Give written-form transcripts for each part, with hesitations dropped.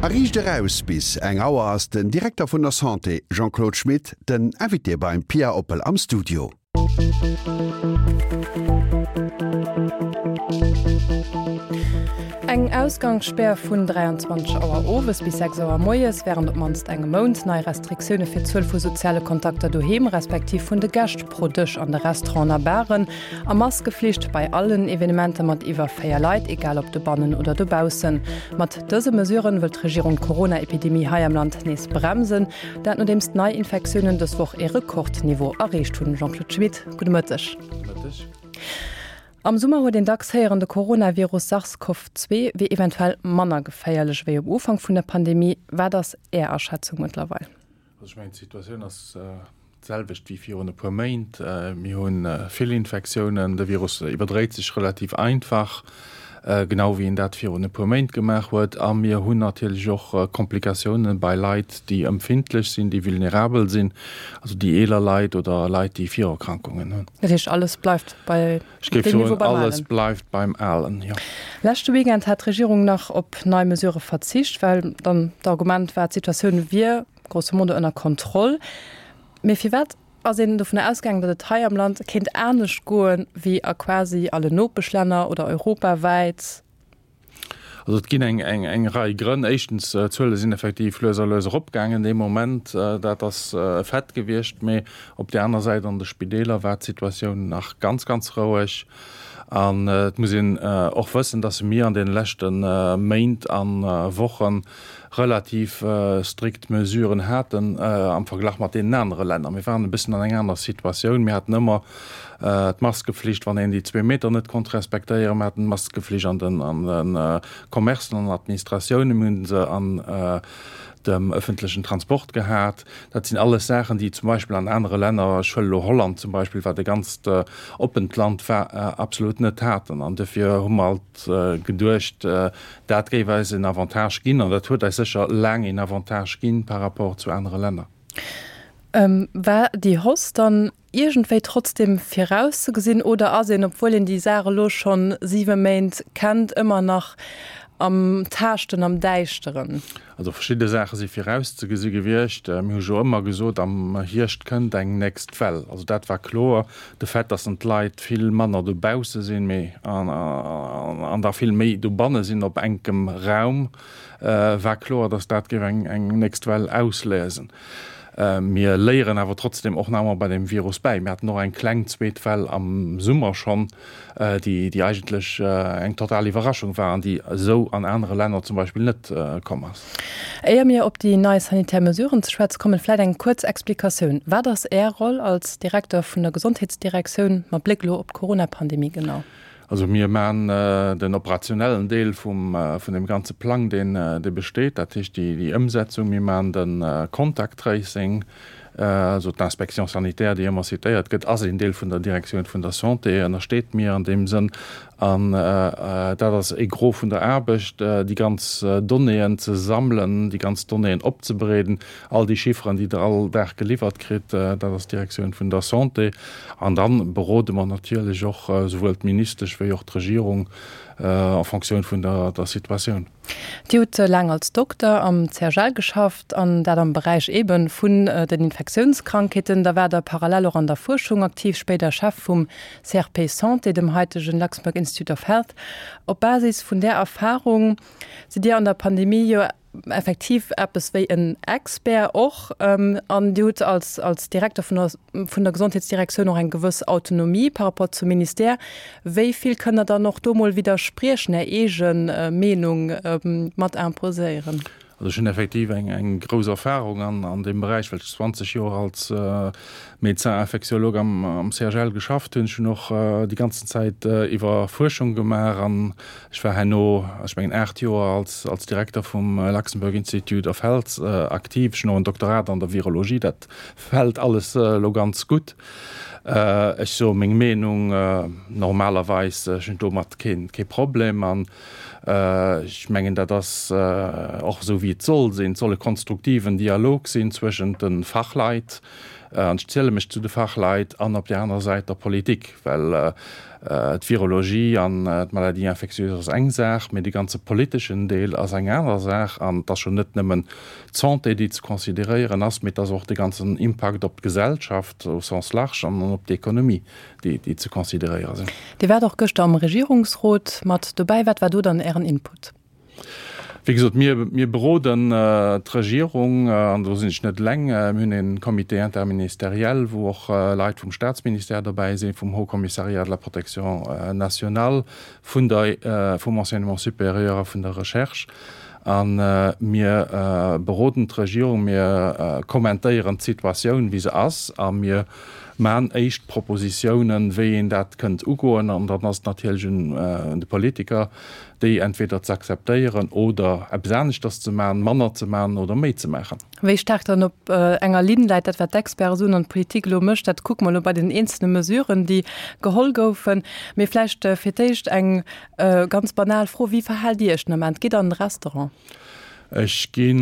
A Riicht eraus bis eng Auer ass den Direkter vun der Santé Jean-Claude Schmit den Invité beim Pia Oppel am Studio. Eng Ausgangsspär vun 23 Auer owes bis 6 Auer moies wärend op d'mannst engem Mount, nei Restriktioune fir d'Zuel vu soziale Kontakter doheem, respektiv vun de Gäscht pro Dësch an de Restauranten a Baren a Maskeflicht bei allen Evenementer mat iwwer 4 Leit, egal ob dobannen oder dobaussen. Mat dëse Mesuren wëll d'Regierung d'Corona-Epidemie hei am Land nees bremsen. Dat nodeems d'Neiinfektiounen dës Woch ee Rekordniveau erreecht hunn. Jean-Claude Schmit, gudde Mëtteg. Gudde Mëtteg. Am Summer huet een dacks héieren, de Coronavirus SARS-CoV-2 wier eventuell manner geféierlech ewéi um Ufank vun der Pandemie. Wat ass Är Aschätzung mëttlerweil? Also ech mengen, d'Situatioun ass d'selwecht wéi virun e puer Méint. Mir hu vill Infektiounen, de Virus iwwerdréit sech relativ einfach, genau wéi en dat virun e puer Méint gemaach huet. A mir hunn natierlech och Komplikatiounen bei Leit, déi empfindlech sinn, déi vulnerabel sinn, also déi eeler Leit oder Leit, déi Virerkrankungen hunn. Dat heescht, alles bleift bei Ech géif soen, alles bleift beim Alen, jo. Leschte Weekend hat d'Regierung nach op nei Mesurë verzicht, well dann d'Argument war, d'Situatioun wier grosso modo ënner Kontroll. Mee firwat ass een dovunner ausgaangen, datt et hei am Land kéint anescht goen, wéi a quasi alle Nopeschlänner oder europawäit? Also et ginn eng, eng, eng Rei Grënn. Éischtens, d'Zuele sinn effektiv lues a lues eropgaangen dee Moment. Dat ass e Fait gewiescht. Mee op där aner Säit, an de Spideeler war d'Situatioun nach ganz, ganz roueg. An et muss een och wëssen, datt mir an deene leschte Méint a Wochen relativ strikt Mesuren haten am Verglach mat deenen anere Länner. Mir waren e bëssen an eng aner Situatioun. Mir haten ëmmer d'Maskeflicht, wann een déi zwee Meter net konnt respektéieren. Mir haten d'Maskeflicht an den an de Commercen, an den Administratiounen. Mir hunn se an dem ëffentlechen Transport gehat. Dat sinn alles Saachen, déi zum Beispill an anere Länner, ech huele elo Holland zum Beispill, wat e ganzt oppent Land war, absolut net haten. An dofir hu mer alt geduecht, Dat géif eis en Avantage ginn, an dat huet eis sécher laang een Avantage ginn par rapport zu anere Länner. War déi Hausse dann iergendwéi trotzdem virauszegesinn oder ass een, obwuel een déi Saach elo scho siwe Méint kennt, ëmmer nach am Taaschten, am Däischteren? Also verschidde Saache si virauszegesi gewiescht. Mir hu jo ëmmer gesot, am Hierscht kënnt eng nächst Well. Also dat war kloer. De Fait, datt dann d'Leit vill manner dobausse sinn, mee an da vill méi dobanne sinn op enkem Raum, war kloer, datt dat géif eng nächst Well ausléisen. Mir léieren awer trotzdeem och nach ëmmer bei deem Virus bäi. Mir haten och eng kleng zweet Well am Summer schonn, déi déi eigentlech eng total Iwwerraschung war an déi esou an anere Länner zum Beispill net komm ass. Éier mir op déi nei sanitär Mesuren ze schwätze kommen, vläit eng kuerz Explikatioun. Wat ass Är Roll als Direkter vun der Gesondheetsdirektioun mat Bléck elo op d'Corona-Pandemie genau? Also mir maachen den operationellen Deel vum vun deem ganze Plang, deen dee besteet, dat heescht déi déi Ëmsetzung. Mir maachen de Contact Tracing, also d'Inspection sanitaire, déi ëmmer citéiert gëtt, ass een Deel vun der Direktioun vun der Santé, ënnersteet mir an deem Sënn. An dat ass e Gros vun der Aarbecht, déi ganz Donnéeën ze sammelen, déi ganz Donnéeën opzebereeden, All déi Chifferen, déi Der all Dag geliwwert kritt, dat ass d'Direktioun vun der Santé. An da berode mer natierlech och souwuel d'Ministesch wéi och d'Regierung en Fonctioun vun der Situatioun. Dir hutt laang als Dokter am CHL geschafft, an dat am Beräich eebe vun den Infektiounskrankheeten. Da waart Der parallel och an der Fuerschung aktiv, spéider Chef vum CRP Santé, dem haitegen Luxembourg Institute of Health. Op Basis vun där Erfarung sidd Dir an der Pandemie jo effektiv eppes wéi en Expert och an Dir hutt als, als Direkter vun der, vun der Gesondheetsdirektioun och eng gewëss Autonomie par rapport zum Ministère. Wéi vill kënnt Der dann och do mol widderspriechen, Är eege Meenung mat imposéieren? Also ech hunn effektiv eng, eng grouss Erfahrung an, an deem Beräich, well ech 20 Joer als Médecin infectiologue am, am CHL geschafft hunn. Ech hunn och déi ganzen Zäit iwwer Fuerschung gemaach an Ech war herno, ech mengen 8 Joer, als als Direkter vum Luxembourg Institute of Health aktiv. Ech hunn och en Doktorat an der Virologie. Dat fält alles elo ganz gutt. Ech soe meng Meenung normalerweis. Ech hunn domat keen kee Problem an ech mengen, dat ass och esou wéi et soll sinn. Et soll e konstruktiven Dialog sinn zwëschent de Fachleit. An ech ziele mech zu de Fachleit an op där anerer Säit der Politik, well d'Virologie an d'Maladies infectieuses ass eng Saach, mee de ganze politeschen Deel ass eng aner Saach. An et ass jo net nëmmen d'Santé, déi ze consideréieren ass, mee et ass och de ganzen Impakt op d'Gesellschaft au sens large an op d'Ekonomie, déi ze consideréiere sinn. Dir waart och gëschter am Regierungsrot mat dobäi. Wat war do dann Ären Input? Wéi gesot, mir, mir beroden d'Regierung, an do sinn ech net eleng. Mir hunn e Comité interministériel, wou och Leit vum Staatsministère dobäi sinn, vum Haut Commissariat de la protection nationale, vun der, vum Enseignement supérieur a vun der Recherche. A mir beroden d'Regierung, mir kommentéieren d'Situatioun, wéi se ass, a mir maan éischt Propositiounen, wéi een dat kënnt ugoen. An dann ass et natierlech un de Politiker, déi entweder ze akzeptéieren oder eppes aneschters ze maachen, manner ze maachen oder méi ze maachen. Wéi staark dann op enger Linn läit, dat wat d'Experte soen an d'Politik elo mécht, dat kucke mer elo bei den eenzelne Mesuren, déi geholl goufen. Mee vläicht fir d'éischt eng ganz banal Fro, Wéi verhaalt Dir Iech den Ament? Gitt Der an de Restaurant? Ech gi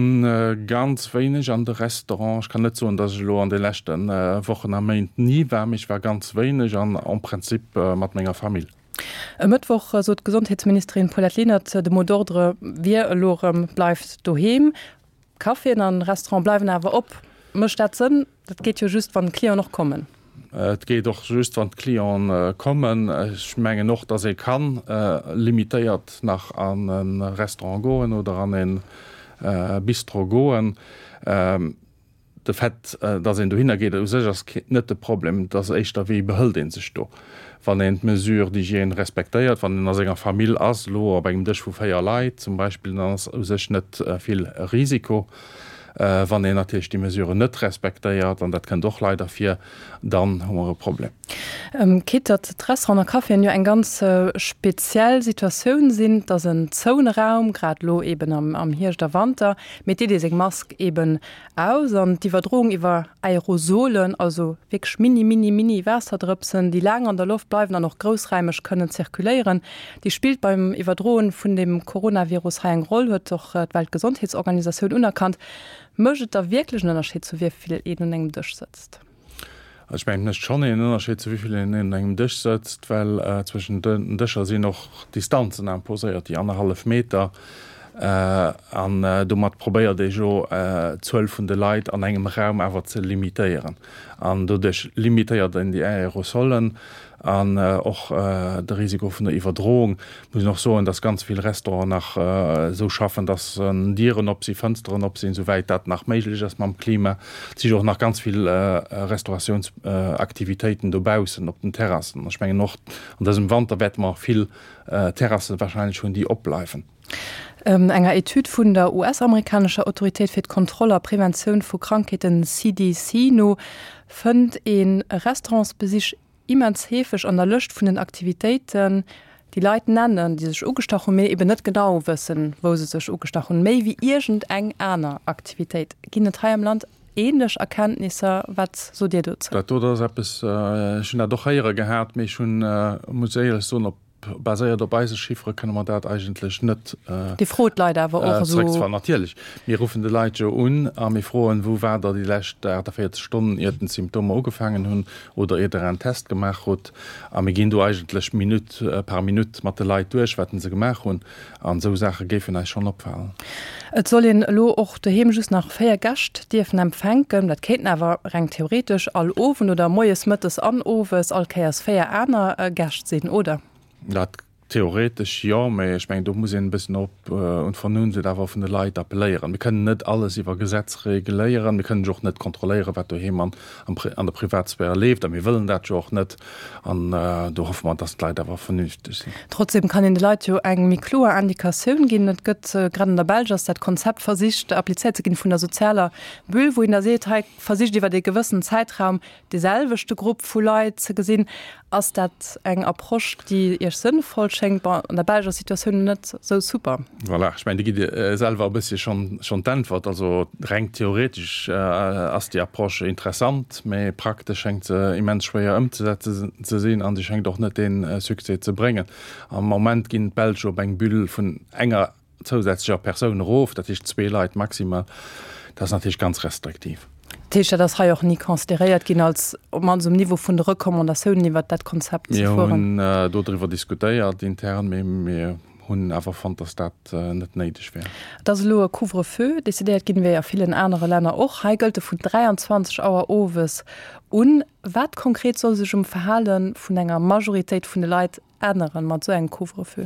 ganz wéineg an de Restaurant. Ech kann net soen, datt ech elo an de leschte Wochen a Méint ni war, mee ech war ganz wéineg an en principe mat menger Famill. E Mëttwoch sot d'Gesondheetsministerin Paulette Lenert, de Mot d'ordre wier elo erëm, Bleift doheem. Caféen an Restaurante bleiwen awer op. Mécht dat Sënn? Dat geet jo just, wann d'Clienten och kommen. Et geet och just, wann d'Clienten kommen. Ech mengen och, datt ee ka limitéiert nach an e Restaurant goen oder an e Bistro goen. De Fait, datt een dohinner geet, u sech ass net de Problem. Et ass éischter, wéi behëlt ee sech do, wann een d'Mesures d'hygiène respektéiert, wann een a senger Famill ass, elo op engem Dësch vu 4 Leit zum Beispill, dann ass u sech net vill Risiko. Wann een natierlech déi Mesuren net respektéiert, an dat kënnt och leider vir, dann hu mer e Problem. Quitte datt d'Restauranten a Caféen jo eng ganz speziell Situatioun sinn, et ass en zoune Raum, grad elo eeben am Hierscht a Wanter, mee et deet ee seng Mask eeben aus an d'Iwwerdroung iwwer Aerosolen, also wierklech mini, mini, mini Waasserdrëpsen, déi laang an der Loft bleiwen an och groussräimeg kënnen zirkuléieren, déi spillt beim Iwwerdroen vun dem Coronavirus hei eng Roll, huet och d'Weltgesondheetsorganisatioun unerkannt. Mécht et da wierklech en Ënnerscheed, zu wéi vill een un engem Dësch sëtzt? Also ech mengen, et mécht schonn een Ënnerscheed, zu wéi vill een un engem Dësch sëtzt, well zwëschen den Dëscher sinn och Distanzen imposéiert, déi annerhallef Meter. An domat probéiert ee jo, d'Zuel vun de Leit an engem Raum awer ze limitéieren. An doduerch limitéiert een déi Aerosolen an och de Risiko vun der Iwwerdroung. Muss een och soen, dass ganz vill Restauranten nach esou schaffen, dass Dieren op sinn, Fënsteren op sinn, souwäit dat nach méiglech ass mam Klima. Et si jo och nach ganz vill Restauratiounsaktivitéiten dobaussen op den Terrassen. Ech mengen och an dësem Wanter wäerte mer vill Terrasse wahrscheinlech hunn, déi opbleiwen. Enger Etüd vun der US-amerikanescher Autoritéit fir d'Kontroll a Preventioun vu Krankheeten, CDC, no fënnt ee Restaurantsbesich immens heefeg an der Lëscht vun den Aktivitéiten, déi Leit nennen, déi sech ugestach hunn, mee eben net genau wëssen, wou se sech ugestach hunn, méi wéi iergend eng aner Aktivitéit. Ginn et hei am Land ähnlech Erkenntnisser? Wat sot Dir dozou? Dat do ass eppes, ech hunn dat och héiere gehat, mee ech hunn, muss éierlech soen, op Baséiert op eise Chiffere kënne mer dat eigentlech net Dir frot d'Leit awer och esou? Zeréckzefalen. Natierlech, mir ruffen de Leit jo un a mir froen, Wou waart Der déi lescht 48 Stonnen, iert den d'Symptomer ugefaangen hunn oder iert Der en Test gemaach hutt? A mir ginn do eigentlech Minutt par Minutt mat de Leit duerch, wat se gemaach hunn. An esou Saache géifen eis schonn opfalen. Et soll een elo och doheem just nach 4 Gäscht dierfen empfänken. Dat kéinten awer reng theoretesch all Owend oder moies, mëttes an owes all Kéiers 4 aner Gäscht sinn, oder? Dat theoretesch jo, mä ech mengen do muss een e bëssen op un d'Vernunft awer vun de Leit appelléieren. Mir kënnen net alles iwwer Gesetz reguléieren. Mir kënnen jo och net kontrolléieren, wat doheem an an der Privatsphäre leeft a mir wëllen dat jo och net. An do hoffe mer, dass d'Leit awer vernünfteg sinn. Trotzdem kann een de Leit jo eng méi kloer Indikatioun ginn. Et gëtt, grad an der Belsch ass dat Konzept versicht applizéiert ze ginn vun der sozialer Bulle, wou een da seet, hei versicht iwwert ee gewëssen Zäitraum dee selwechte Grupp vu Leit ze gesinn. Ass dat eng Approche, déi Iech sënnvoll schéngt? Bon, an der Belsch ass d'Situatioun net esou super. Voilà, ech mengen, Dir gitt selwer e bëssche schonn d'Äntwert. Also reng theoretesch ass déi Approche interessant, mä praktesch schéngt se immens schwéier ëmzesetzen ze sinn a se schéngt och net dee Succès ze bréngen. Am Moment ginn d'Belsch op eng Bulle vun enger zousätzlecher Persoun erof, dat heescht zwee Leit maximal. Dat ass natierlech ganz restriktiv. Dat heescht, dat ass hei och ni consideréiert ginn als, op d'mannst um Niveau vun de Recommandatiounen iwwert dat Konzept ze fueren? Mir hunn dodriwwer diskutéiert intern, mee mir hunn awer fonnt, dass dat net néideg wär. Et ass elo e Couvre-feu decidéiert ginn, wéi a villen anere Länner och. Hei gëllt e vun 23 Auer owes un. Wat konkret soll sech um Verhale vun enger Majoritéit vun de Leit änneren mat esou engem Couvre-feu?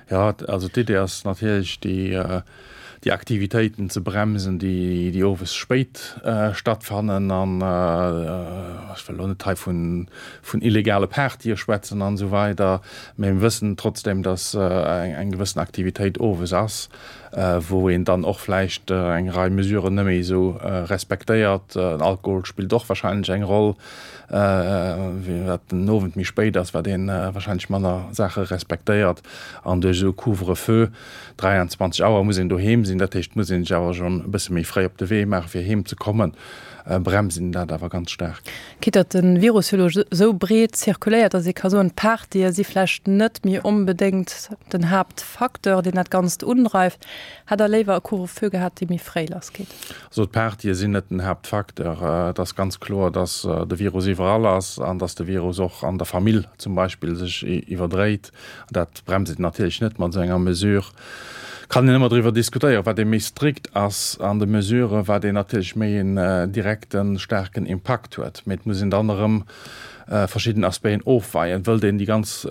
Jo, also d'Idee ass natierlech déi, déi Aktivitéiten ze bremsen, déi, déi owes spéit stattfannen. An ech wëll elo net hei vun, vun illegale Partye schwätzen an esou weider, mä mir wëssen trotzdem, datt eng gewëssen Aktivitéit owes ass, wou een dann och vläicht eng Rei Mesuren net méi esou respektéiert. Den Alkohol spillt och wahrscheinlech eng Roll. Wat den Owend méi spéit ass, wat ee wahrscheinlech manner Saache respektéiert. An duerch esou e Couvre-feu, 23 Auer muss een doheem sinn, dat heescht, muss een sech awer schonn e bësse méi fréi op de Wee maachen, fir heem ze kommen, bremst een dat awer ganz staark. Quitte datt de Virus jo elo esou breet zirkuléiert, datt ee ka soen, d'Partye si vläicht net méi onbedéngt den Haaptfacteur, deen dat Ganzt undreift. Hätt Der léiwer e Couvre-feu gehat, dee méi fréi lassgeet? Also d'Partye sinn net den Haaptfacteur. Et ass ganz kloer, datt de Virus iwwerall ass an datt de Virus och an der Famill zum Beispill sech iwwerdréit. Dat bremst een natierlech net mat esou enger Mesure. Kann een ëmmer driwwer diskutéieren, wat ee méi strikt ass an de Mesuren, wat een natierlech méi een direkten, staarken Impakt huet. Mee et muss een dann erëm verschidden Aspecten ofweien. Wëllt een déi ganz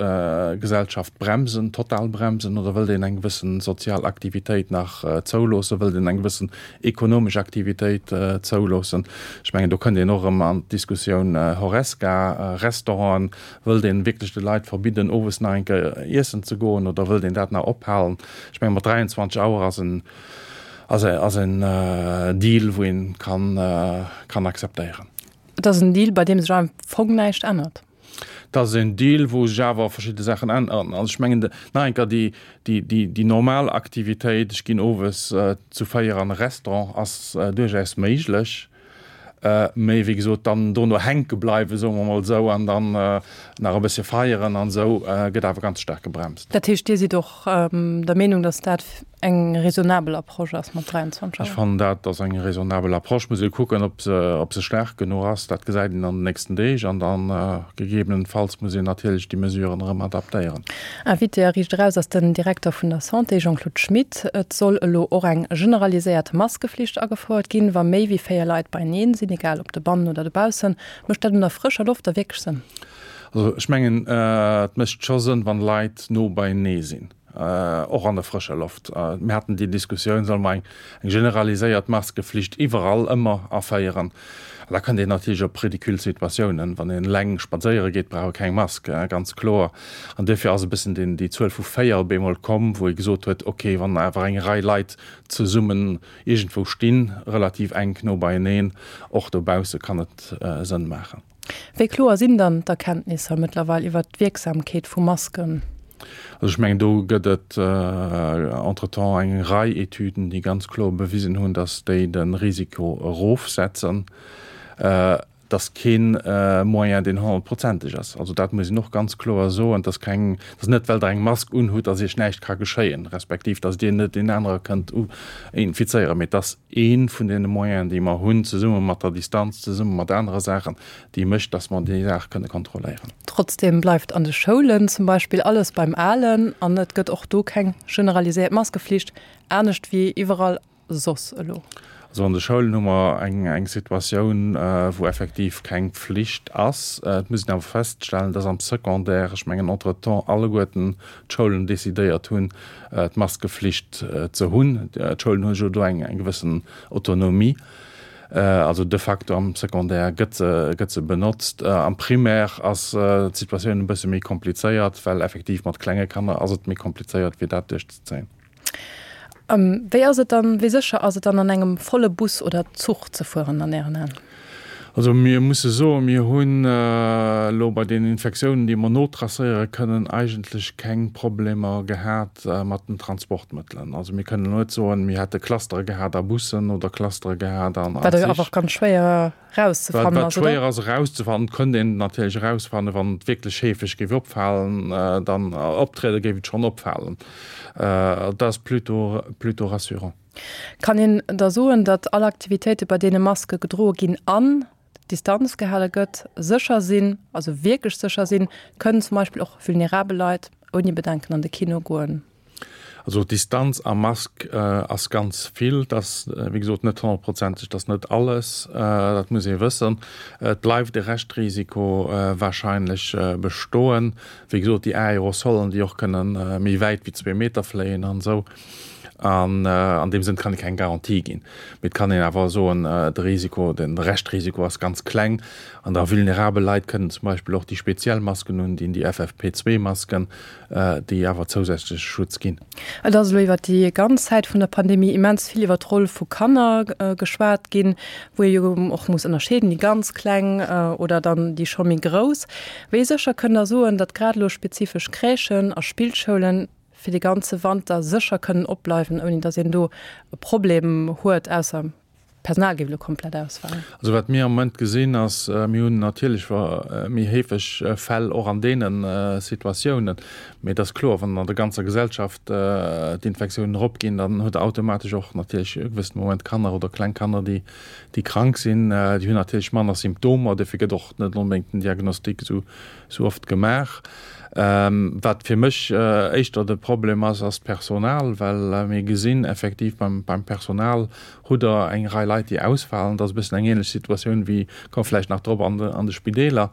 Gesellschaft bremsen, total bremsen, oder wëllt een eng gewëssen sozial Aktivitéit nach zouloossen, wëllt een eng gewëssen ekonomesch Aktivitéit zouloossen? Ech mengen, do kënnt een och erëm an d'Diskussioun Horesca, Restauranten. Wëllt een wierklech de Leit verbidden, owes nach eng Kéier iessen ze goen, oder wëllt een dat nach ophalen? Ech mengen, mat 23 Auer ass en, ass en Deal, wou een kann, kann akzeptéieren. Et ass en Deal, bei deem sech am Fong näischt ännert. Et ass en Deal, wou sech awer verschidde Saachen änneren. Also ech mengen, nach eng Kéier, déi, déi, déi, déi normal Aktivitéit, ech ginn owes zu 4 an e Restaurant, ass duerchaus méiglech. Mee wéi gesot, dann dono hänke bleiwen, soe mer emol esou, an dann nach e bëssche feieren an esou, gëtt awer ganz staark gebremst. Dat heescht, Dir sidd och der Meenung, datt dat eng raisonnabel Approche ass mat 23 Auer? Ech fannen, dat ass eng raisonnabel Approche. Muss ee kucken, ob se, ob se staark genuch ass. Dat gesäit een an den nächsten Deeg. An da gegebenenfalls muss een natierlech déi Mesuren erëm adaptéieren. Invité a Riicht Eraus ass den Direkter vun der Santé, Jean-Claude Schmit. Et soll elo och eng generaliséiert Maskeflicht agefouert ginn, wa méi wéi 4 Leit beieneen sinn, egal ob dobannen oder dobaussen. Mécht dat un der frëscher Loft da wierklech Sënn? Also ech mengen, et mécht scho Sënn, wann Leit no beienee sinn, och an der frëscher Loft. Mir haten déi Diskussioun, solle mer eng generaliséiert Maskeflicht iwwerall ëmmer aféieren? Da kënnt een natierlech op ridicule Situatiounen. Wann een eleng spadséiere geet, brauch e keng Mask, ganz kloer. An duerfir ass e bëssen déi Zuel vu 4 op eemol komm, wou ee gesot huet, okay, wann awer eng Rei Leit zesummen iergendwou stinn, relativ enk no beieneen, och dobausse kann et Sënn maachen. Wéi kloer sinn dann d'Erkenntnisser mëttlerweil iwwert d'Wierksamkeet vu Masken? Also ech mengen, do gëtt et entretemps eng Rei Etüden, déi ganz kloer bewisen hunn, datt déi de Risiko erofsetzen. Et ass kee Moyen, deen honnertprozenteg ass. Also dat muss een och ganz kloer soen. Et ass keng, et ass net, well Der eng Mask unhutt, datt Iech näischt ka geschéien, respektiv datt Dir net deen anere kënnt infizéieren, mee et ass Ee vun deene Moyenen, déi mer hunn, zesumme mat der Distanz, zesumme mat anere Saachen, déi mécht, dass mer déi Saach kënne kontrolléieren. Trotzdem bleift an de Schoulen zum Beispill alles beim Alen an et gëtt och do keng generaliséiert Maskeflicht, anescht wéi iwwerall soss elo. Also an de Schoulen hu mer eng Situatioun, wou effektiv keng Pflicht ass. Et muss een awer feststellen, dass am Secondaire, ech mengen entretemps alleguerten d'Schoulen decidéiert hunn, d'Maskeflicht ze hunn. D'Schoulen hu jo do eng gewëssen Autonomie. Also de facto am Secondaire gëtt se, gëtt se benotzt. Am Primaire ass d'Situatioun e bësse méi komplizéiert, well effektiv mat klenge Kanner ass et méi komplizéiert, fir dat duerchzezéien. Wéi ass et dann, wéi sécher ass et dann an engem volle Bus oder Zuch ze fueren an Ären Aen? Also mir musse soen, mir hunn elo bei den Infektiounen, déi mer notracéiere kënnen, eigentlech keng Problemer gehat mat den Transportmëttelen. Also mir kënnen elo net soen, mir hätte Clustere gehat a Bussen oder Clustere gehat an Wat jo awer och ganz schwéier erauszefannen ass, oder? Wat schwéier ass erauszefannen, kënnt een natierlech erausfannen, wann et wierklech heefeg géif opfalen, dann optriede géif et schonn opfalen. Dat ass plutôt, plutôt rassurant. Kann een da soen, datt all Aktivitéite bei deene Maske gedroe ginn an Distanz gehale gëtt, sécher sinn, also wierklech sécher sinn? Kënnen zum Beispill och vulnerabel Leit ouni Bedenken an de Kino goen? Also Distanz a Mask ass ganz vill. Et ass wéi gesot net honnertprozenteg, et ass net alles, dat muss ee wëssen. Et bleift e Reschtrisiko warscheinlech bestoen. Wéi gesot, déi Aerosolen, déi och kënne méi wäit wéi zwee Meter fléien an esou. An an deem Sënn kann ee keng Garantie ginn. Mee et kann een awer soen, de Risiko, de Reschtrisiko ass ganz kleng. An da vulnerabel Leit kënnen zum Beispill och déi speziell Masken undinn, déi FFP2-Masken. déi awer zousätzleche Schutz ginn. Et ass elo iwwer déi ganz Zäit vun der Pandemie immens vill iwwer d'Roll vu Kanner geschwat ginn, wou ee jo och muss ënnerscheeden, déi ganz Kleng oder dann déi scho méi Grouss. Wéi sécher kënnt Der soen, datt grad elo spezifesch Crèchen a Spillschoulen fir de ganze Wanter sécher kënnen opbleiwen, ouni datt een do e Problem huet, ausser D'Personal géif elo komplett ausfalen. Also wat mir am Moment gesinn ass, mir hunn natierlech méi heefeg Fäll och an deene Situatiounen. Mee et ass kloer, wann an der ganzer Gesellschaft d'Infektiounen eropginn, dann huet Der automatesch och natierlech e gewëssene Moment Kanner oder kleng Kanner, déi krank sinn. Déi hunn natierlech manner Symptomer, dofir gëtt och net onbedéngt den Diagnostic esou oft gemaach. Wat fir mech éischter de Problem ass, ass d'Personal, well mir gesinn effektiv beim Personal, Hutt Der eng Rei Leit, déi ausfalen? Dat ass e bëssen eng ähnlech Situatioun wéi, komme vläicht nach drop, an de Spideeler.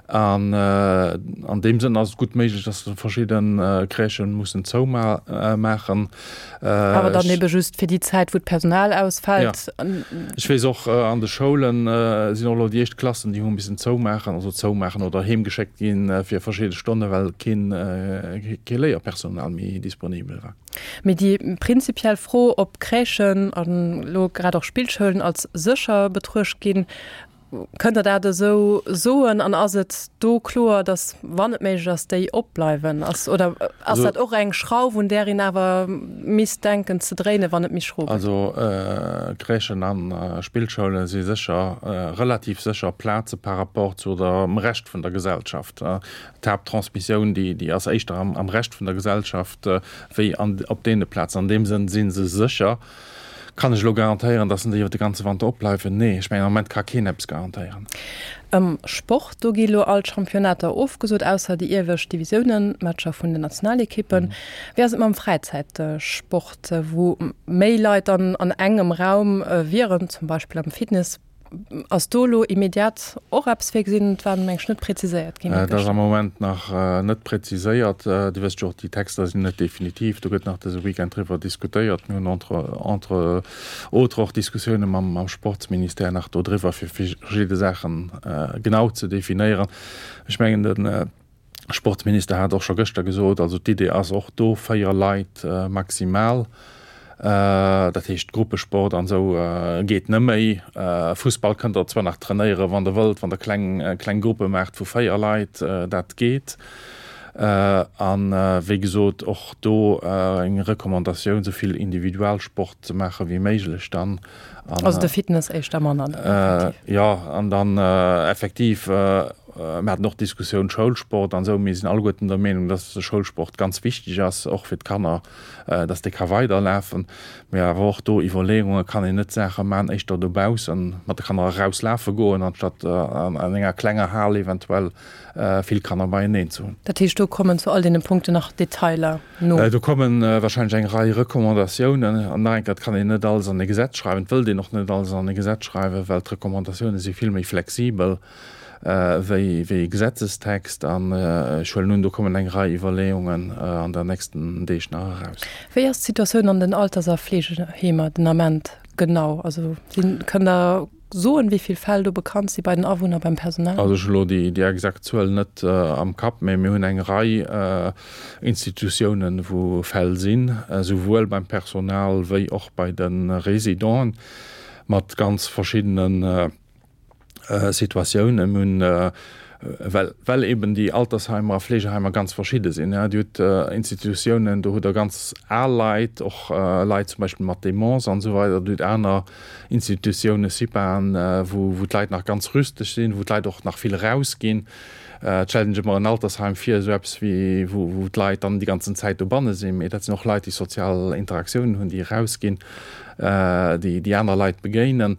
An an deem Sënn ass et gutt méiglech, dass verschidde Crèchë mussen zoumaachen. Awer dann ebe just fir déi Zäit, wou d'Personal ausfält. Jo. Ech weess och, an de Schoule sinn och elo déi éischt Klassen, déi hu missen zoumaachen, also zoumaachen oder heemgeschéckt ginn fir verschidde Stonne well keen, kee Léierpersonal méi disponibel war. Mee déi prinzipiell Fro, ob Crèchen an elo grad och Spillschoulen als sécher betruecht ginn, kënnt Der dat esou soen? An ass et do kloer, datt, wann et méiglech ass, déi opbleiwen? Ass, oder ass dat och eng Schrauf, un där een awer misst denken ze dréinen, wann et méi schro gëtt? Also Crèchen a Spillschoule si sécher, relativ sécher Plaze par rapport zu dem Rescht vun der Gesellschaft. D'Haapttransmissioun, déi ass éischter am Rescht vun der Gesellschaft wéi op deene Plazen. An deem Sënn si se sécher. Kann ech elo garantéieren, datt se déi iwwer de ganze Wanter opbleiwen? Nee, ech mengen, am Moment ka keen eppes garantéieren. Am Sport, do gi elo all d'Championnater ofgesot, ausser déi iewescht Divisiounen, d'Matcher vun den Nationalekippen. Wéi ass et mam Fräizäitsport, wou méi Leit dann an engem Raum wieren, zum Beispill am Fitness? Ass do elo immediat och eppes virgesinn? Et war meng ech net präziséiert ginn. Et ass am Moment nach net präziséiert. Dir wësst jo och, déi Texter sinn net definitiv. Do gëtt nach dëse Weekend driwwer diskutéiert. Mir hunn entre entre autres och Diskussioune mam Sportsministère nach do driwwer, fir verschidde Saache genau ze definéieren. Ech mengen, de Sportsminister hat och scho gëschter gesot, also d'Idee ass och do 4 Leit maximal, dat heescht Gruppesport an esou geet net méi. Fussball kënnt der zwar nach trainéieren, wann der wëllt, wann der kleng kleng Gruppe maacht vu 4 Leit, dat geet. An wéi gesot och do eng Recommandatioun, esou vill Individualsport ze maache wéi méiglech dann. Also de Fitness éischter manner dann effektiv. Jo, an dann effektiv, mir haten och d'Diskussioun Schoulsport an esou. Mir sinn alleguerten der Meenung, dass de Schoulsport ganz wichteg ass, och fir d'Kanner, dass dee ka weiderlafen. Mee awer och do Iwwerleeunge, kann een net Saache maachen éischter dobaussen, mat de Kanner erauslafe goen, anstatt an enger klenger Hal eventuell vill Kanner beieneen ze hunn. Dat heescht, do kommen zu all deene Punkten nach Detailer no? Do komme wahrscheinlech eng Rei Recommandatiounen. An nach eng Kéier, et kann een net alles an e Gesetz schreiwen, et wëllt een och net alles an e Gesetz schreiwen, well d'Recommandatioune si vill méi flexibel wéi e Gesetzestext. An ech huelen un, do kommen eng Rei Iwwerleeungen an der nächsten Deeg nach eraus. Wéi ass d'Situatioun an den Alters a Fleegeheemer den Ament genau? Also kënnt Der Soen, wéi vill Fäll do bekannt si bei den Awunner, beim Personal? Also ech hu elo déi exakt Zuel net am Kapp, mä mir hunn eng Rei Institutiounen, wou Fäll sinn, esouwuel beim Personal wéi och bei de Résidenten, mat ganz verschiddene Situatiounen. Mir hunn, well, well eben déi Altersheimer a Fleegeheimer ganz verschidde sinn. Dir hutt Institutiounen, do hutt Der ganz al Leit, och Leit zum Beispill mat Demence an esou weider. Dir hutt aner Institutiounen, CIPAen, wou, wou d'Leit nach ganz rüsteg sinn, wou d'Leit och nach vill erausginn. Et stellt een sech ëmmer en Altersheim vir, esou eppes wéi wou wou d'Leit dann déi ganzen Zäit dobanne sinn, mee dat sinn och Leit, déi sozial Interaktiounen hunn, déi erausginn, déi déi aner Leit begéinen.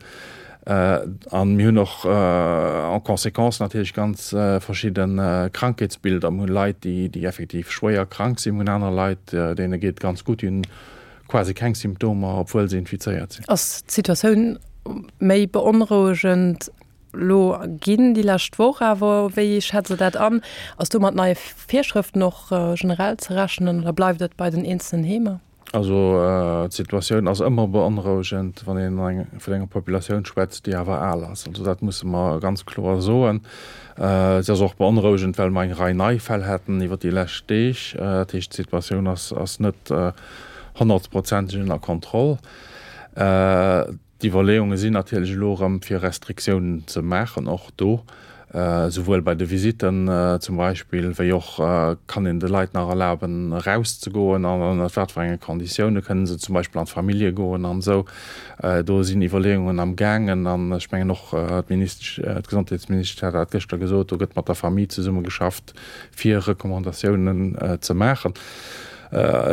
An mir hunn och en conséquence natierlech ganz verschidde Krankheetsbilder. Mir hunn Leit, déi déi effektiv schwéier krank sinn, mir hunn aner Leit, deene geet et ganz gutt, déi hunn quasi keng Symptomer, obwuel se infizéiert sinn. Ass d'Situatioun méi beonrouegend elo ginn déi lescht Woch awer? Wéi schätzt Der dat an? Ass do mat neie Virschrëften och generell ze rechnen oder bleift et bei den eenzelnen Heemer? Also d'Situatioun ass ëmmer beonrouegend, wann een vun enger Populatioun schwätzt, déi awer al ass. Also dat musse mer ganz kloer soen. Se ass och beonrouegend, well mer eng Rei nei Fäll haten iwwer déi lescht Deeg. Dat heescht, d'Situatioun ass net honnertprozenteg ënner Kontroll. D'Iwwerleeunge sinn natierlech elo erëm, fir Restriktiounen ze maachen, och do, esouwuel bei de Visitten zum Beispill, wéi och kann een de Leit nach erlaben, erauszegoen an ënnert wat fir enge Konditioune kënnen se zum Beispill an d'Famillje goen an esou. Do sinn Iwwerleeungen am gaangen an ech mengen och d'Ministesch, d'Gesondheetsministesch hat dat gëschter gesot, do gëtt mat der Famille zesummegeschafft, fir Recommandatiounen ze maachen.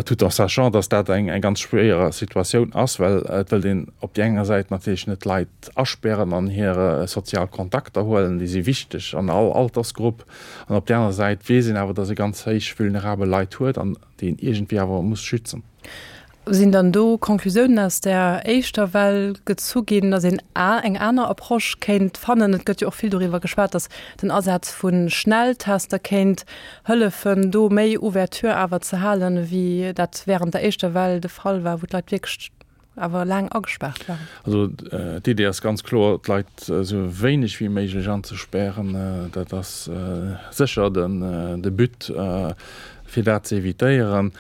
Tout en sachant, dass dat eng ganz schwéier Situatioun ass, well et wëllt een op déi enger Säit natierlech net d'Leit aspären an hir sozial Kontakter huelen, déi si wichteg an all Altersgrupp, an op déi aner Säit weess een awer, dass ee ganz héich vulnerabel Leit huet an déi een iergendwéi awer muss schützen. Sinn dann do Conclusiounen aus där éischter Well gezu ginn, datt een eng aner Approche kéint fannen? Et gëtt jo och vill doriwwer geschwat, datt den Asaz vu Schnelltester kéint hëllefen, do méi Ouverture awer ze halen, wéi dat wärend der éischter Well de Fall war, wou d'Leit wierklech awer laang agespaart waren. Also d'Idee ass ganz kloer, d'Leit esou wéineg wéi méiglech anzespären. Dat ass sécher de But, fir dat ze evitéieren.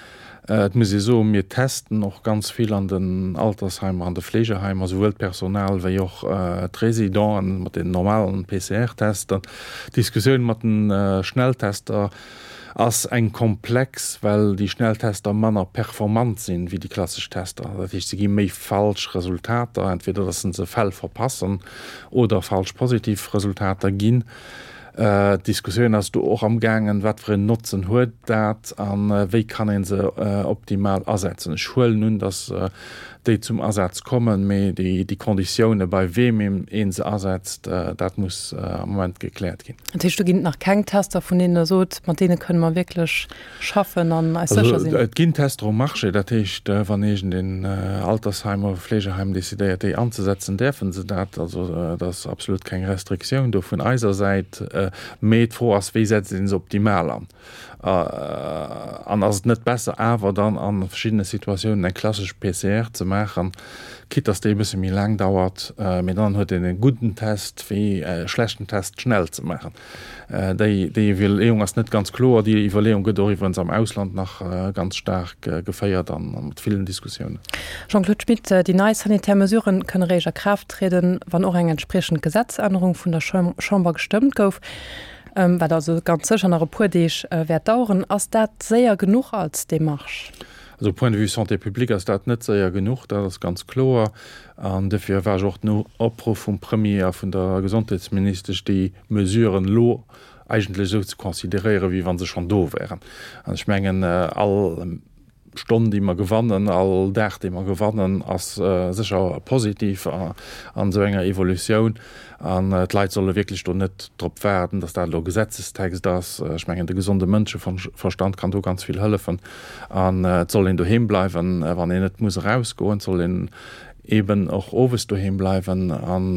Et muss ee soen, mir testen och ganz vill an den Altersheimer, an de Fleegeheimer, souwuel d'Personal wéi och d'Residenten mat den normalen PCR-Tester. D'Diskussioun mat de Schnelltester ass eng komplex, well déi Schnelltester manner performant sinn wéi déi klassesch Tester. Dat heescht, se gi méi falsch Resultater, entweder datt se se Fäll verpassen oder falsch positiv Resultater ginn. D'Diskussioun ass do och am gaangen, wat fir en Notzen huet dat a wéi kann ee se optimal asetzen. Ech huelen un, datt déi zum Asaz kommen, mee déi Konditioune bei weem ee se asetzt, dat muss am Moment gekläert ginn. Dat heescht, do ginn et nach keng Tester, vun deenen Der sot, mat deene kënne mer wierklech schaffen an eis sécher sinn? Et ginn Tester um Marché. Dat heescht, wann iergendeen Altersheim oder Fleegeheim decidéiert, déi anzesetzen, däerfe se dat. Also et ass absolut keng Restriktioun do vun eiser Säit. Mee d'Fro ass, wéi setzt ee se optimal an? An ass et net besser awer dann a verschiddene Situatiounen eng klassesch PCR ze maachen, quitte dass déi e bësse méi laang dauert, mee dann huet een e gudden Test wéi e schlechten Test schnell ze maachen? Déi Iwwerleeung ass net ganz kloer. Déi Iwwerleeung gëtt och iwwerens am Ausland nach ganz staark geféiert a mat villen Diskussiounen. Jean-Claude Schmit, Déi nei sanitär Mesuren kënne réischt a Kraaft trieden, wann och eng entspriechend Gesetzännerung vun der Chamber gestëmmt gouf, wat also ganz sécher nach e puer Deeg wäert daueren. Ass dat séier genuch als Demarche? Also point de vue Santé publique ass dat net séier genuch, dat ass ganz kloer. An dofir war ech och den Opruff vum Premier a vun der Gesondheetsministesch, déi Mesuren elo eigentlech esou ze consideréieren, wéi wa se schonn do wären. An ech mengen, all Stonn, déi mer gewannen, all Dag, dee mer gewannen, ass sécher positiv an esou enger Evolutioun. An d'Leit solle wierklech do net drop waarden, datt dat elo Gesetzestext ass. Ech mengen, de gesonde Mënscheverstand kann do ganz vill hëllefen. An et soll een doheem bleiwen, wann een net muss erausgoen. Et soll een eeben och owes doheem bleiwen an,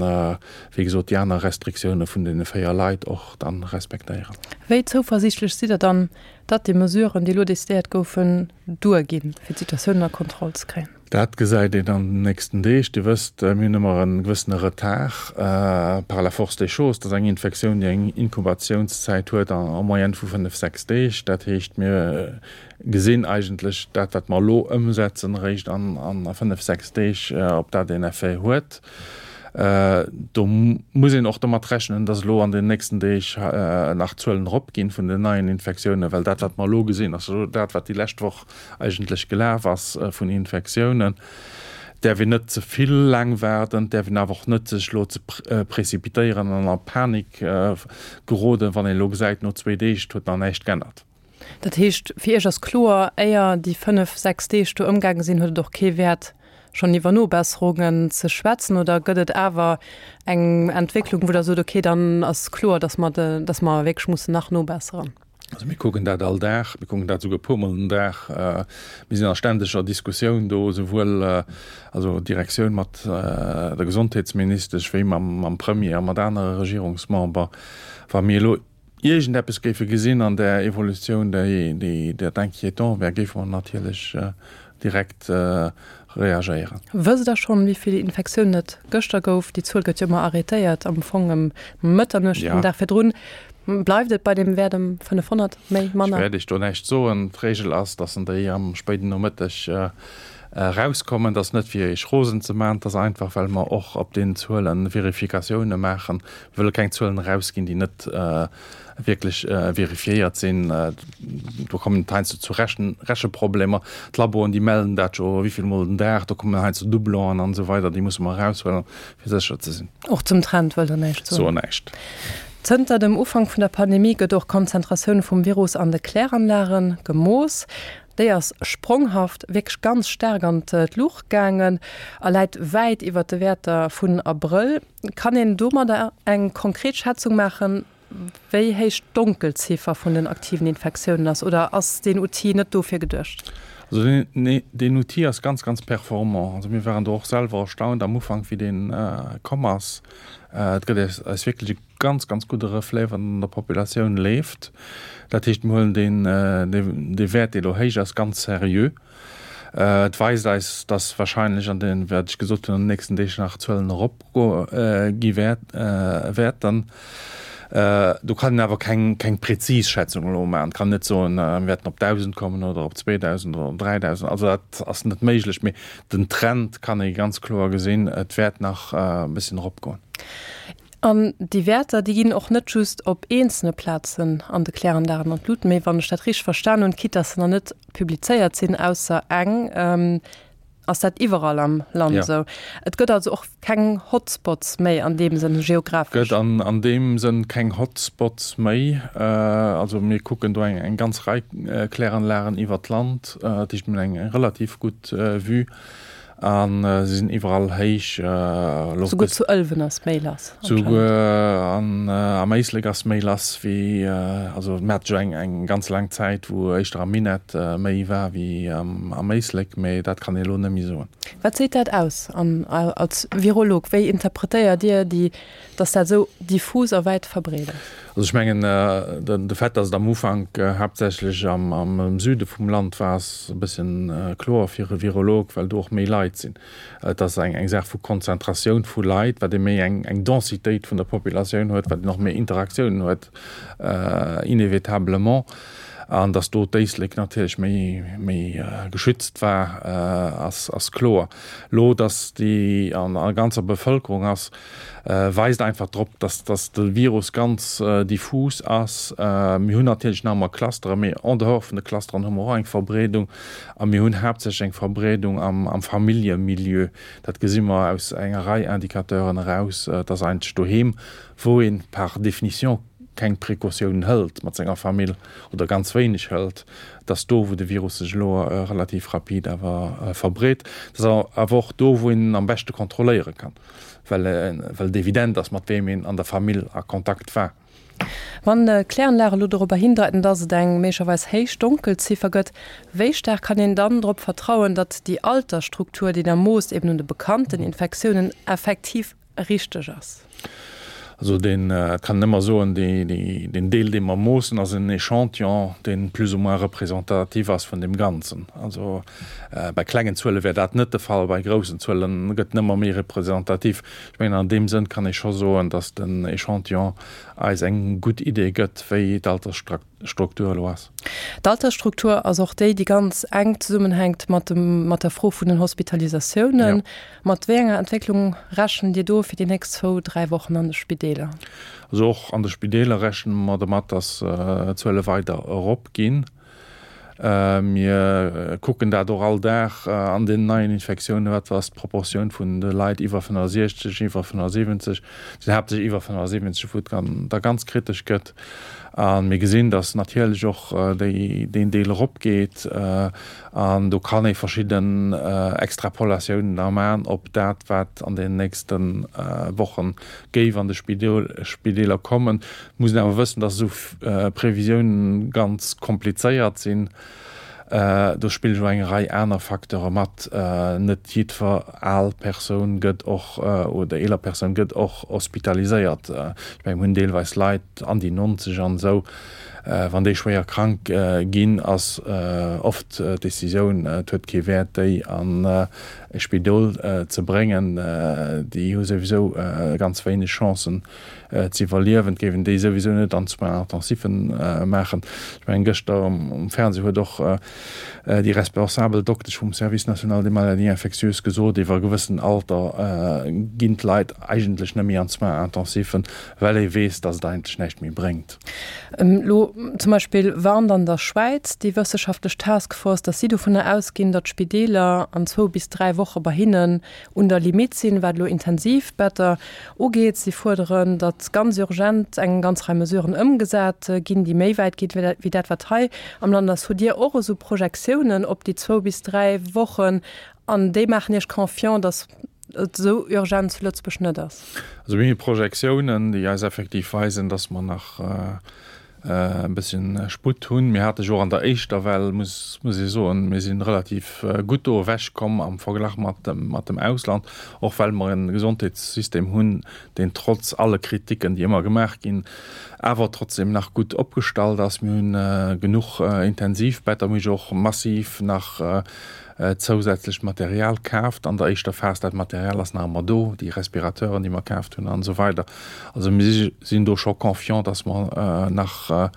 wéi gesot, déi aner Restriktioune vun deene 4 Leit och dann respektéieren. Wéi zouversiichtlech sidd Der dann, datt déi Mesuren, déi elo decidéiert goufen, duerginn, fir d'Situatioun ënner Kontroll ze kréien? Dat gesäit een an den nächsten Deeg. Dir wësst, mir hunn ëmmer e gewëssene Retard par la force des choses. Dat ass eng Infektioun, déi eng Inkubatiounszäit huet en moyenne vu 5, 6 Deeg. Dat heescht, mir gesinn eigentlech dat, wat mer elo ëmsetzen, eréischt an 5, 6 Deeg, ob dat een Effet huet. Do muss een och domat rechnen, dass elo an den nächsten Deeg nach d'Zuelen eropginn vun den neien Infektiounen, well dat, wat mer elo gesinn, ass jo dat, wat déi lescht Woch eigentlech gelaf ass vun Infektiounen. Däerf een net ze vill laang waarden, et däerf een awer och net sech elo ze précipitéieren an a Panik geroden, wann een elo gesäit, no zwéi Deeg, et huet nach näischt g'ännert. Dat heescht, fir Iech ass kloer, éier déi fënnef, sechs Deeg do ëmgaange sinn, huet et och kee Wäert, schonn iwwer Nobesserungen ze schwätzen? Oder gëtt et awer eng Entwécklung, wou Der sot, okay, dann ass kloer, datt mer, datt mer wierklech mussen nach nobesseren? Also mir kucken dat all Dag, mir kucken dat souguer e puermol den Dag. Mir sinn a ständeger Diskussioun do, esouwuel also d'Direktioun mat der Gesondheetsministesch wéi mam Premier a mat anere Regierungsmember. Wa mir elo iergendeppes géife gesinn an där Evolutioun, déi dat inquiétant wär, géife mer natierlech direkt reagéieren. Wësst Der schonn, wéi vill Infektiounen et gëschter gouf? Déi Zuel gëtt jo ëmmer arrêtéiert am Fong ëm Mëtternuecht den Dag virdrun. Bleift et bei deem Wäert ëm 500, méi, manner? Ech wäert Iech do näischt soen. D'Reegel ass, dass en déi am spéiden Nomëtteg erauskommen. Dat ass net fir Iech rosen ze maachen, dat ass einfach, well mer och op deenen Zuele Verifikatioune maachen. Mir wëlle keng Zuelen erausginn, déi net wierklech verifiéiert sinn. Do kommen et heiansdo zu Rechen Recheproblemer. D'Laboen, déi mellen dat jo wéi vill Mol den Dag. Do kommen heiansdo Doublonen an esou weider. Déi musse mer eraushuelen, fir sécher ze sinn. Och zum Trend wëllt Der näischt soen? Soen näischt. Zënter dem Ufank vun der Pandemie gëtt och d'Konzentratioun vum Virus an de Kläranlage gemooss. Déi ass spronghaft, wierklech ganz staark an d'Luucht gaangen a läit wäit iwwer de Wäerter vun Abrëll. Kann een domadder eng konkret Schätzung maachen, wéi héich d'Donkelziffer vun den aktiven Infektiounen ass, oder ass deen Outil net dofir geduecht? Also deen Outil ass ganz, ganz performant. Also mir waren do och selwer erstaunt am Ufank, wéi dee komm ass. Et gëtt eis wierklech e ganz, ganz gudde Reflet, wat an der Populatioun leeft. Dat heescht, mir huelen deen, dee Wäert, dee elo héich ass, ganz seriö. Et weist eis, dass wahrscheinlech an den, wat ech gesot hunn, an den nächsten Deeg nach Zuelen eropgo gi wäerten. Do kann een awer keng, keng präzis Schätzung elo maachen. Et kann een net soen, mir wäerten op 1.000 kommen oder op 2.000 oder op 3.000. Also dat ass net méiglech. Mee den Trend kann ee ganz kloer gesinn, et wäert nach e bësschen eropgoen. An déi Wäerter, déi ginn och net just op eenzelne Plazen an de Kläranlagen an d'Lut, mee wann ech dat richteg verstan hunn, quitte dass se nach net publizéiert sinn, ausser eng, ass dat iwwerall am Land esou. Et gëtt also och keng Hotspots méi an deem Sënn geographesch. Gëtt an deem Sënn keng Hotspots méi. Also mir kucken do eng ganz Rei Kläranlagen iwwert d'Land, dat heescht mir hunn eng relativ gutt Vue. A se sinn iwwerall héich. Souguer zu Ëlwen ass méi lass. Souguer am Éislek ass méi lass wéi, also mir hate jo eng ganz laang Zäit, wou éischter am Minett méi war wéi am Éislek, mee dat kann ee elo net méi soen. Wat seet dat aus? An als Virolog, wéi interpretéiert Dir déi dass dat esou diffus a wäit verbreet ass? Also ech mengen, de Fait, dass et am Ufank haaptsächlech am Süde vum Land war, ass e bëssen kloer fir e Virolog, well do och méi Leit sinn. Et ass eng Saach vu Konzentratioun vu Leit, wat ee méi eng Densitéit vun der Populatioun huet, wat een och méi Interaktiounen huet inévitablement. An dass do d'Éislek natierlech méi geschützt war, ass kloer. Elo, dass déi an der ganzer Bevëlkerung ass, weist einfach drop, dass dass de Virus ganz diffus ass. Mir hunn natierlech nach ëmmer Clusteren, mee en dehors vun de Clusteren hu mer och eng Verbreedung a mir hunn haaptsächlech eng Verbreedung am am Familljemilieu. Dat gesi mer aus enger Rei Indicateuren eraus. Et ass eigentlech doheem, wou een par définition keng Precautiounen hëlt mat senger Famill oder ganz wéineg hëlt, et ass do, wou de Virus sech elo relativ rapid awer verbreet. Et ass awer och do, wou een en am beschte kontrolléiere kann. well well et evident ass, mat weem een an der Famill a Kontakt war. Wann d'Kläranlage elo dorobber hindeiten, datt et eng méiglecherweis héich Donkelziffer gëtt, wéi staark kann een dann drop vertrauen, datt déi Altersstruktur, déi Der moosst, eben un de bekannten Infektiounen, effektiv richteg ass? Also deen, et kann een ëmmer soen, deen Deel, dee mer moossen, ass en Échantillon, dee plus ou moins représentatif ass vun deem Ganzen. Also bei klengen Zuele wär dat net de Fall, bei groussen Zuele gëtt en ëmmer méi représentatif. Ech mengen, an deem Sënn kann ee scho soen, datt den Échantillon eis eng gutt Idee gëtt, wéi d'Altersstruktur Struktur elo ass. D'Altersstruktur ass och déi, déi ganz enk zesummenhänkt mat dem, mat der Fro vun den Hospitalisatiounen. Mat wéi enger Entwécklung rechent Dir do fir déi nächst zwou, dräi Wochen an de Spideeler? Also och an de Spideeler rechne mer domat, datt d'Zuele weider eropginn. Mir kucken dat och all Dag an den neien Infektiounen, wat ass d'Proportioun vun de Leit iwwer 65, iwwer 75, et sinn haaptsächlech iwwer 75, wou et da ganz kritesch gëtt. A mir gesinn, datt natierlech och déi, deen Deel eropgeet. An do kann ee verschidden Extrapolatiounen da maachen op dat, wat an den nächste Woche géif an de Spideeler kommen. Et muss een awer wëssen, datt esou Previsiounen ganz komplizéiert sinn. Do spillen och eng Rei aner Facteure mat. Net jiddwer al Persoun gëtt och, oder eeler Persoun gëtt och hospitaliséiert. Ech mengen, mir hunn deelweis Leit an déi 90 an esou, wann déi schwéier krank ginn, ass oft d'Decisioun, et huet kee Wäert, déi an e Spidol ze bréngen. Déi hu souwisou ganz wéineg Chancen, ze iwwerliewen, et géif een déi souwisou net an Soins intensifen maachen. Ech mengen, gëschter um Fernseh huet och déi responsabel Doktesch vum Service national des maladies infectieuses gesot, iwwer e gewëssen Alter ginn d'Leit eigentlech net méi an d'Soins intensifen, well ee weess, datt et eigentlech näischt méi bréngt. Elo zum Beispill warnt an der Schwäiz déi wësseschaftlech Taskforce, datt si dovunner ausginn, datt d'Spideeler an zwou bis 3 Woche bei hinnen un der Limitt sinn, wat elo Intensivbetter ugeet. Si fuerderen, datt ganz urgent eng ganz Rei Mesuren ëmgesat ginn, déi méi wäit ginn, wéi dat, wat hei am Land ass. Hutt Dir och esou Projektiounen op déi zwou bis 3 Wochen an déi maachen Iech confiant, datt et esou urgent zu Lëtzebuerg net ass? Also mir hu Projektiounen, déi eis effektiv weisen, datt mer nach e bësschen Sputt hunn. Mir hate jo och an der éischter Well, muss muss ee soen, mir si relativ gutt do ewech komm am Verglach mat dem mat dem Ausland, och well mer e Gesondheetssystem hunn, deen trotz alle Kriticken, déi ëmmer gemaach ginn, awer trotzdem nach gutt opgestallt ass. Mir hunn genuch Intensivbetter, mir hu jo och massiv nach zousätzlecht Material kaaft an der éischter Phas. Dat Material ass nach ëmmer do, déi Respirateuren, déi mer kaaft hunn an esou weider. Also mir sinn do scho confiant, dass mer nach,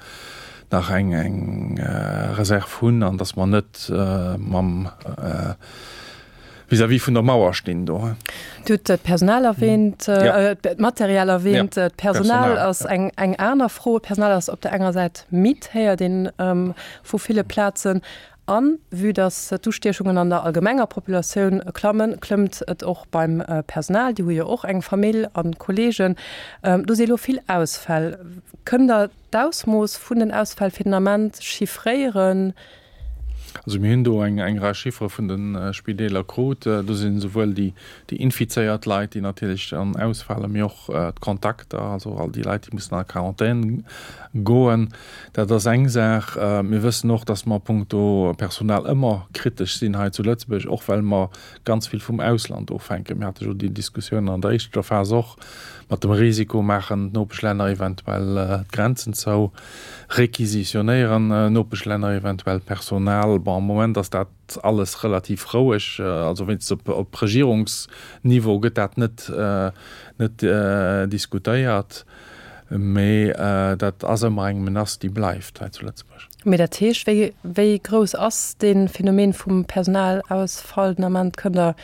nach eng, eng Reserv hunn an dass mer net mam vis-à-vis vun der Mauer stinn do. Dir hutt d'Personal erwähnt, d'Material erwähnt. D'Personal ass eng, eng aner Fro. D'Personal ass op der enger Säit midd, héiert een vu ville Plazen. A vue dass d'Ustiechungen an der allgemenger Populatioun klammen, klëmmt et och beim Personal. Déi hu jo och eng Famill a Kolleegen. Do si elo vill Ausfäll. Kënnt Der d'Ausmooss vun den Ausfäll fir den Ament chiffréieren? Also mir hunn do eng Rei Chiffere vun de Spideeler krut. Do sinn esouwuel déi infizéiert Leit, déi natierlech dann ausfalen, mee och d'Kontakter, also all déi Leit, déi mussen a Quarantän goen. Dat ass eng Saach. Mir wëssen och, dass mer punkto Personal ëmmer kritesch sinn hei zu Lëtzebuerg, och well mer ganz vill vum Ausland ofhänken. Mir hate jo déi Diskussioun an der éischter Phas och mat dem Risiko, maachen d'Nopeschlänner eventuell d'Grenzen zou, requisitionéieren Nopeschlänner eventuell Personal. Bon, am Moment ass dat alles relativ roueg, also wéinstens op Regierungsniveau gëtt dat net, net diskutéiert. Mee dat ass ëmmer eng Menace, déi bleift hei zu Lëtzebuerg. Mee dat heescht, wéi, wéi grouss ass dee Phänomen vum Personalausfall den Ament? Kënnt Der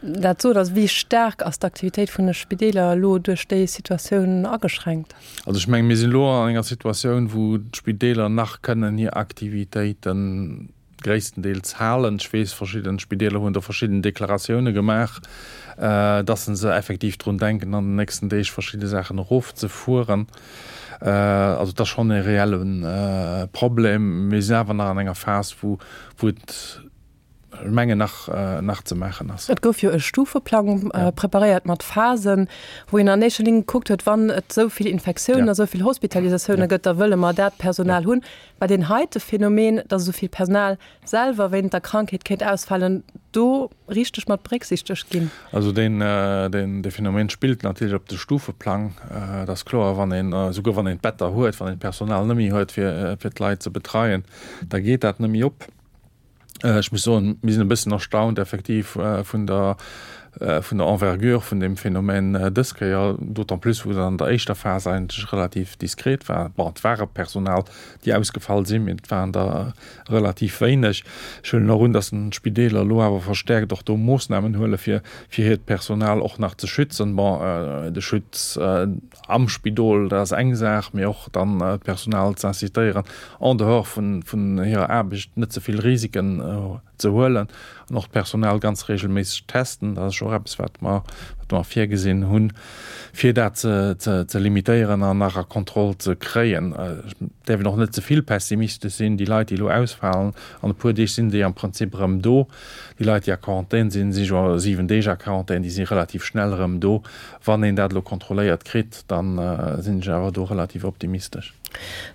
dat soen? Also wéi staark ass d'Aktivitéit vun de Spideeler elo duerch déi Situatioun ageschränkt? Also ech menge mir sinn elo an enger Situatioun, wou d'Spideeler nach kënnen hir Aktivitéiten, gréisstendeels halen. Ech weess, verschidden Spideeler hunn do verschidden Deklaratioune gemaach, dass se se effektiv drun denken, an den nächsten Deeg verschidde Saachen erofzefueren. Also et ass schonn e reelle Problem. Mir sinn awer nach an enger Phas, wou wou et, ech mengen, nach nach ze maachen ass. Et gouf jo e Stufeplang preparéiert mat Phasen, wou een an éischter Linn gekuckt huet, wann et esou vill Infektiounen a esou vill Hospitalisatioune gëtt, da wëlle mer dat Personal hunn. War deen heite Phänomen, dass esou vill Personal selwer wéinst der Krankheet kéint ausfalen, do richteg mat berécksichtegt ginn? Also deen, deen, dee Phänomen spillt natierlech op de Stufeplang. Et ass kloer, wann een, esouguer wann een d'Better huet, wann een d'Personal net méi huet, fir, fir d'Leit ze betreien, da geet dat net méi op. Ech muss soen, mir sinn e bëssen erstaunt effektiv vun der. vun der Envergure vun deem Phänomen dës Kéier, d'autant plus wou se an der éischter Phas eigentlech relativ diskret war. Bon, et ware Personal, déi ausgefall sinn, mee et waren der relativ wéineg. Ech huelen och un, datt d'Spideeler elo awer verstärkt och do Moossnamen huele fir fir hiert Personal och nach ze schützen. Bon, de Schutz am Spidol, dat ass eng Saach, mee och dann d'Personal ze incitéieren, en dehors vun vun hirer Aarbecht net ze vill Risiken ze huelen an och d'Personal ganz regelméisseg testen. Dat ass jo och eppes, wat mer, wat mer virgesinn hunn, fir dat ze, ze, ze limitéieren an nach a Kontroll ze kréien. Et däerf een och net ze vill pessimistesch sinn. Déi Leit, déi elo ausfalen, an e puer Deeg sinn déi am Prinzip erëm do. Déi Leit, déi a Quarantän sinn, si jo 7 Deeg a Quarantän, déi si relativ schnell erëm do. Wann een dat elo kontrolléiert kritt, da sinn ech awer do relativ optimistesch.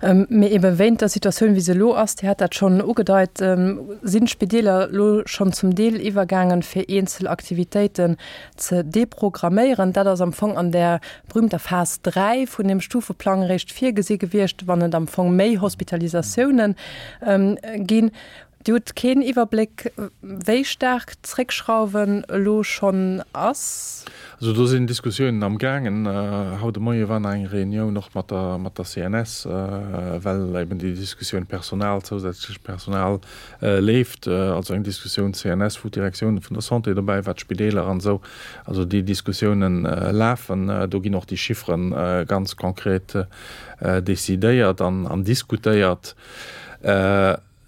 Mee ebe wéint der Situatioun, wéi se elo ass, Dir hat dat schonn ugedeit, sinn d'Spideeler elo schonn zum Deel iwwergaangen, fir eenzel Aktivitéiten ze deprogramméieren. Dat ass am Fong an där berühmter Phas 3 vun deem Stufeplang eréischt virgesi gewiescht, wann et am Fong méi Hospitalisatiounen ginn. Dir hutt keen Iwwerbléck, wéi staark d'Zréckschrauwen elo schonn ass? Also do sinn Diskussiounen am gaangen. Haut de Moie war nach eng Reunioun och mat der mat der CNS, well eben déi Diskussioun Personal, zousätzlecht Personal leeft. Also eng Diskussioun CNS, wou d'Direktioun vun der Santé dobäi war, d'Spideeler an esou. Also déi Diskussiounen lafen. Do ginn och déi Chiffere ganz konkret decidéiert an an diskutéiert.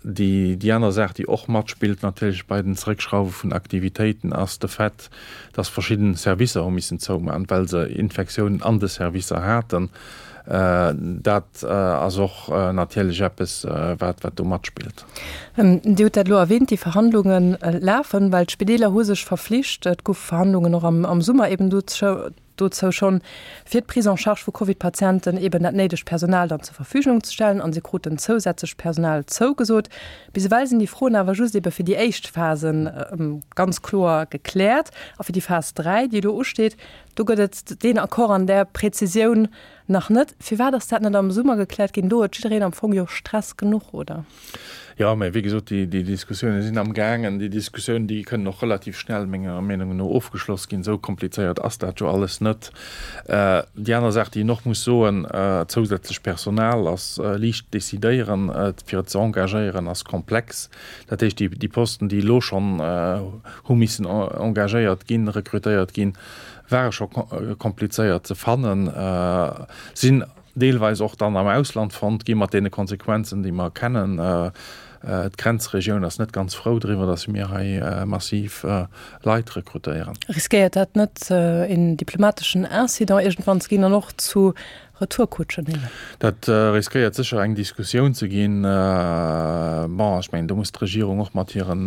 Déi aner Saach, déi och matspillt natierlech bei den Zeréckschrauwe vun Aktivitéiten, ass de Fait, dass verschidden Servicer hu missen zoumaachen, well se Infektiounen an de Servicer haten. Dat ass och natierlech eppes, wat do matspillt. Dir hutt dat elo erwähnt, déi Verhandlunge lafen, well d'Spideeler hu sech verflicht, et goufe Verhandlungen och am Summer eben dozou schonn, fir d'Prise en charge vu Covid-Patienten eben dat néidegt Personal dann zur Verfügung ze stellen an se kruten zousätzlecht Personal zougesot. Bis ewell sinn déi Froen awer just ebe fir déi éischt Phase ganz kloer gekläert a fir déi Phas 3, déi elo usteet, do gëtt et deen Accord an där Präzisioun nach net. Firwat ass dat net am Summer gekläert ginn? Do huet jiddereen am Fong jo Stress genuch, oder? Jo, mä wéi gesot, déi, déi Diskussiounen sinn amgaangen. Déi Diskussiounen, déi kënnen och relativ schnell, menger Meenung no, ofgeschloss ginn. Esou komplizéiert ass dat jo alles net. Déi aner Saach, déi een och muss soen, Zousätzlech Personal ass liicht decidéieren, fir et ze engagéieren ass komplex. Dat heescht, déi, déi Posten, déi elo schonn hu missen engagéiert ginn, rekrutéiert ginn, ware scho komplizéiert ze fannen, sinn deelweis och dann am Ausland fonnt gi mat deene Konsequenzen, déi mer kennen. D'Grenzregioun ass net ganz frou driwwer, datt mir hei massiv Leit rekrutéieren. Riskéiert dat net een diplomateschen Incident iergendwann ze ginn an och zu Retourkutschen eben? Dat riskéiert sécher eng Diskussioun ze ginn. Bon, ech mengen, do muss d'Regierung och mat hiren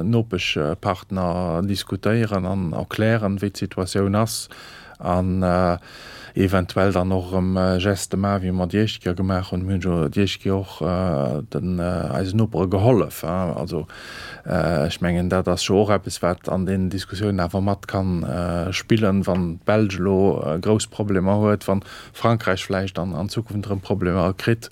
Nopeschpartner diskutéieren an erklären, wéi d'Situatioun ass an eventuell dann och erëm Geste maachen, wéi mer déi éischt Kéier gemaach hunn. Mir hunn jo déi éischt Kéier och den eisen Nopere gehollef. Also ech mengen, dat ass jo och eppes, wat an deenen Diskussiounen awer mat ka spillen, wann d'Belsch elo grouss Problemer huet, wann Frankräich vläicht an an Zukunft erëm Problemer kritt,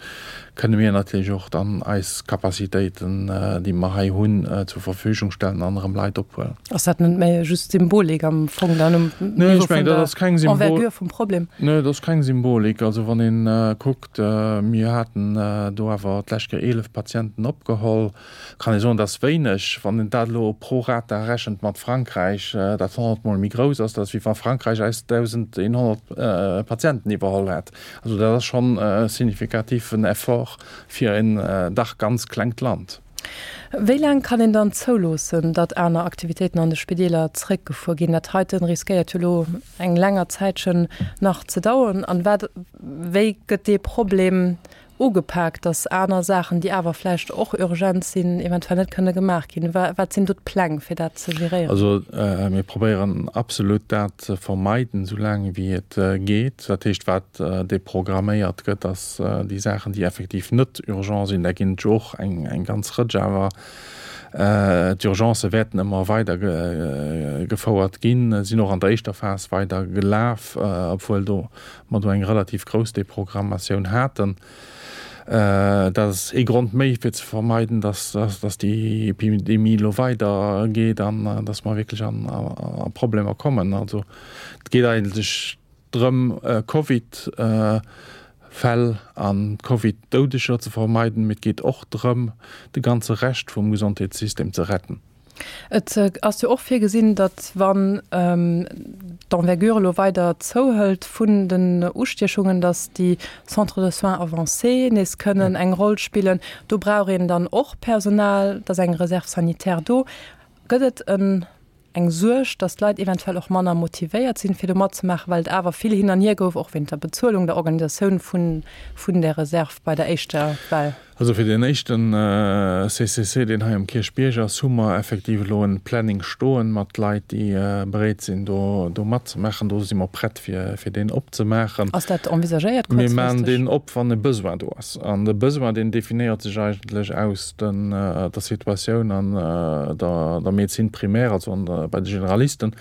kënne mir natierlech och dann eis Capacitéiten, déi mer hei hunn, zur Verfügung stellen an erëm Leit ophuelen. Ass dat net méi just Symbolik am Fong dann um Niveau vun der Envergure vum Problem? Nee, dat ass keng Symbolik. Also wann ee kuckt, mir haten do awer d'lescht Kéier 11 Patienten opgeholl. Kann ee soen, dat ass wéineg. Wann een dat elo pro rata rechent mat Frankräich, dat 100 mol méi grouss ass, dat ass wéi wa Frankräich eis 1.100 Patienten iwwerholl hätt. Also dat ass schonn e signifikativen Effort fir en dach ganz klengt Land. Wéi laang kann een dann zouloossen, datt aner Aktivitéiten an de Spideeler zeréckgefuer ginn? Dat heiten riskéiert jo elo eng länger Zäitchen nach ze daueren. An wat, wéi gëtt dee Problem ugepak, datt aner Saachen, déi awer vläicht och urgent sinn, eventuell net kënne gemaach ginn? Wat sinn do d'Pläng, fir dat ze geréieren? Also mir probéieren absolut dat ze vermeiden, esou laang wéi et geet. Dat heescht, wat deprogramméiert gëtt, ass déi Saachen, déi effektiv net urgent sinn. Där ginn et jo och eng ganz Rëtsch awer. D'Urgencë wäerten ëmmer weider gefouert ginn, sinn och an der éischter Phas weider gelaf, obwuel do mer do eng relativ grouss Deprogrammatioun haten. Dat ass ee Grond méi, fir ze vermeiden, dass déi Epidemie elo weidergeet an dass mer wierklech a Problemer kommen. Also et geet eigentlech drëm, Covid-Fäll a Covid-Doudeger ze vermeiden, mee et geet och drëm, de ganze Rescht vum Gesondheetssystem ze retten. Et ass jo och virgesinn, datt wann d'Envergure elo weider zouhëlt vun den Ustiechungen, datt déi Centres de soins avancés nees kënnen eng Roll spillen. Do brauch een dann och Personal, et ass eng Réserve sanitaire do. Gëtt et en eng Suerg, datt d'Leit eventuell och manner motivéiert sinn, fir do matzemaachen, well et awer vill hin an hier gouf, och wéint der Bezuelung, der Organisatioun vun vun där Reserve bei der éischter Well? Also fir deen éischten CCC, deen hei um Kierchbierg ass, hu mer effektiv elo en Planning stoen mat Leit, déi bereet sinn, do do matzemaachen. Do si mer prett, fir fir deen opzemaachen. Ass dat envisagéiert Mir maachen kuerzfristeg? deen op, wann e Besoin do ass. An de Besoin, deen definéiert sech eigentlech aus den der Situatioun an der der Médecine primaire, also an der bei de Generalisten.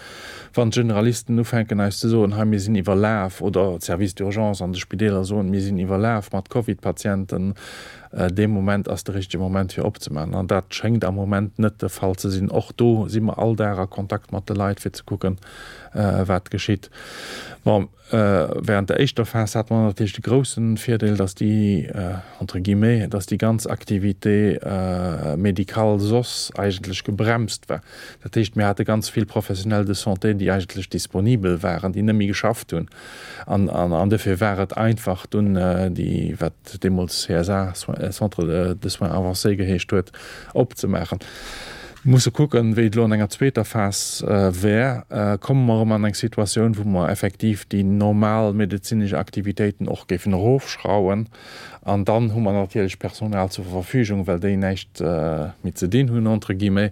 Wann d'Generalisten ufänken eis ze soen, hei mir sinn iwwerlaf, oder d'Services d'urgence an de Spideeler soen, mir sinn iwwerlaf mat Covid-Patienten, dee Moment ass de richtege Moment fir opzemaachen. An dat schéngt am Moment net de Fall ze sinn. Och do si mer all Dag a Kontakt mat de Leit fir ze kucken, wat geschitt. Bon. Während der éischter Phas hate mer natierlech de groussen Virdeel, dass déi, entre guillemets, dass déi ganz Activité médicale soss eigentlech gebremst war. Dat heescht, mir hate ganz vill Professionnels de santé, déi eigentlech disponibel waren, déi net méi geschafft hunn. An, an, an dofir war et einfach dunn déi, wat deemools CSA, Centre de soins avancés geheescht huet, opzemaachen. Musse kucken, wéi et elo an enger zweeter Phas wär. Komme mer erëm an eng Situatioun, wou mer effektiv déi normal medezinesch Aktivitéiten och géifen erofschrauwen. An dann hu mer natierlech Personal zur Verfügung, well déi näischt méi ze dinn hunn, entre guillemets.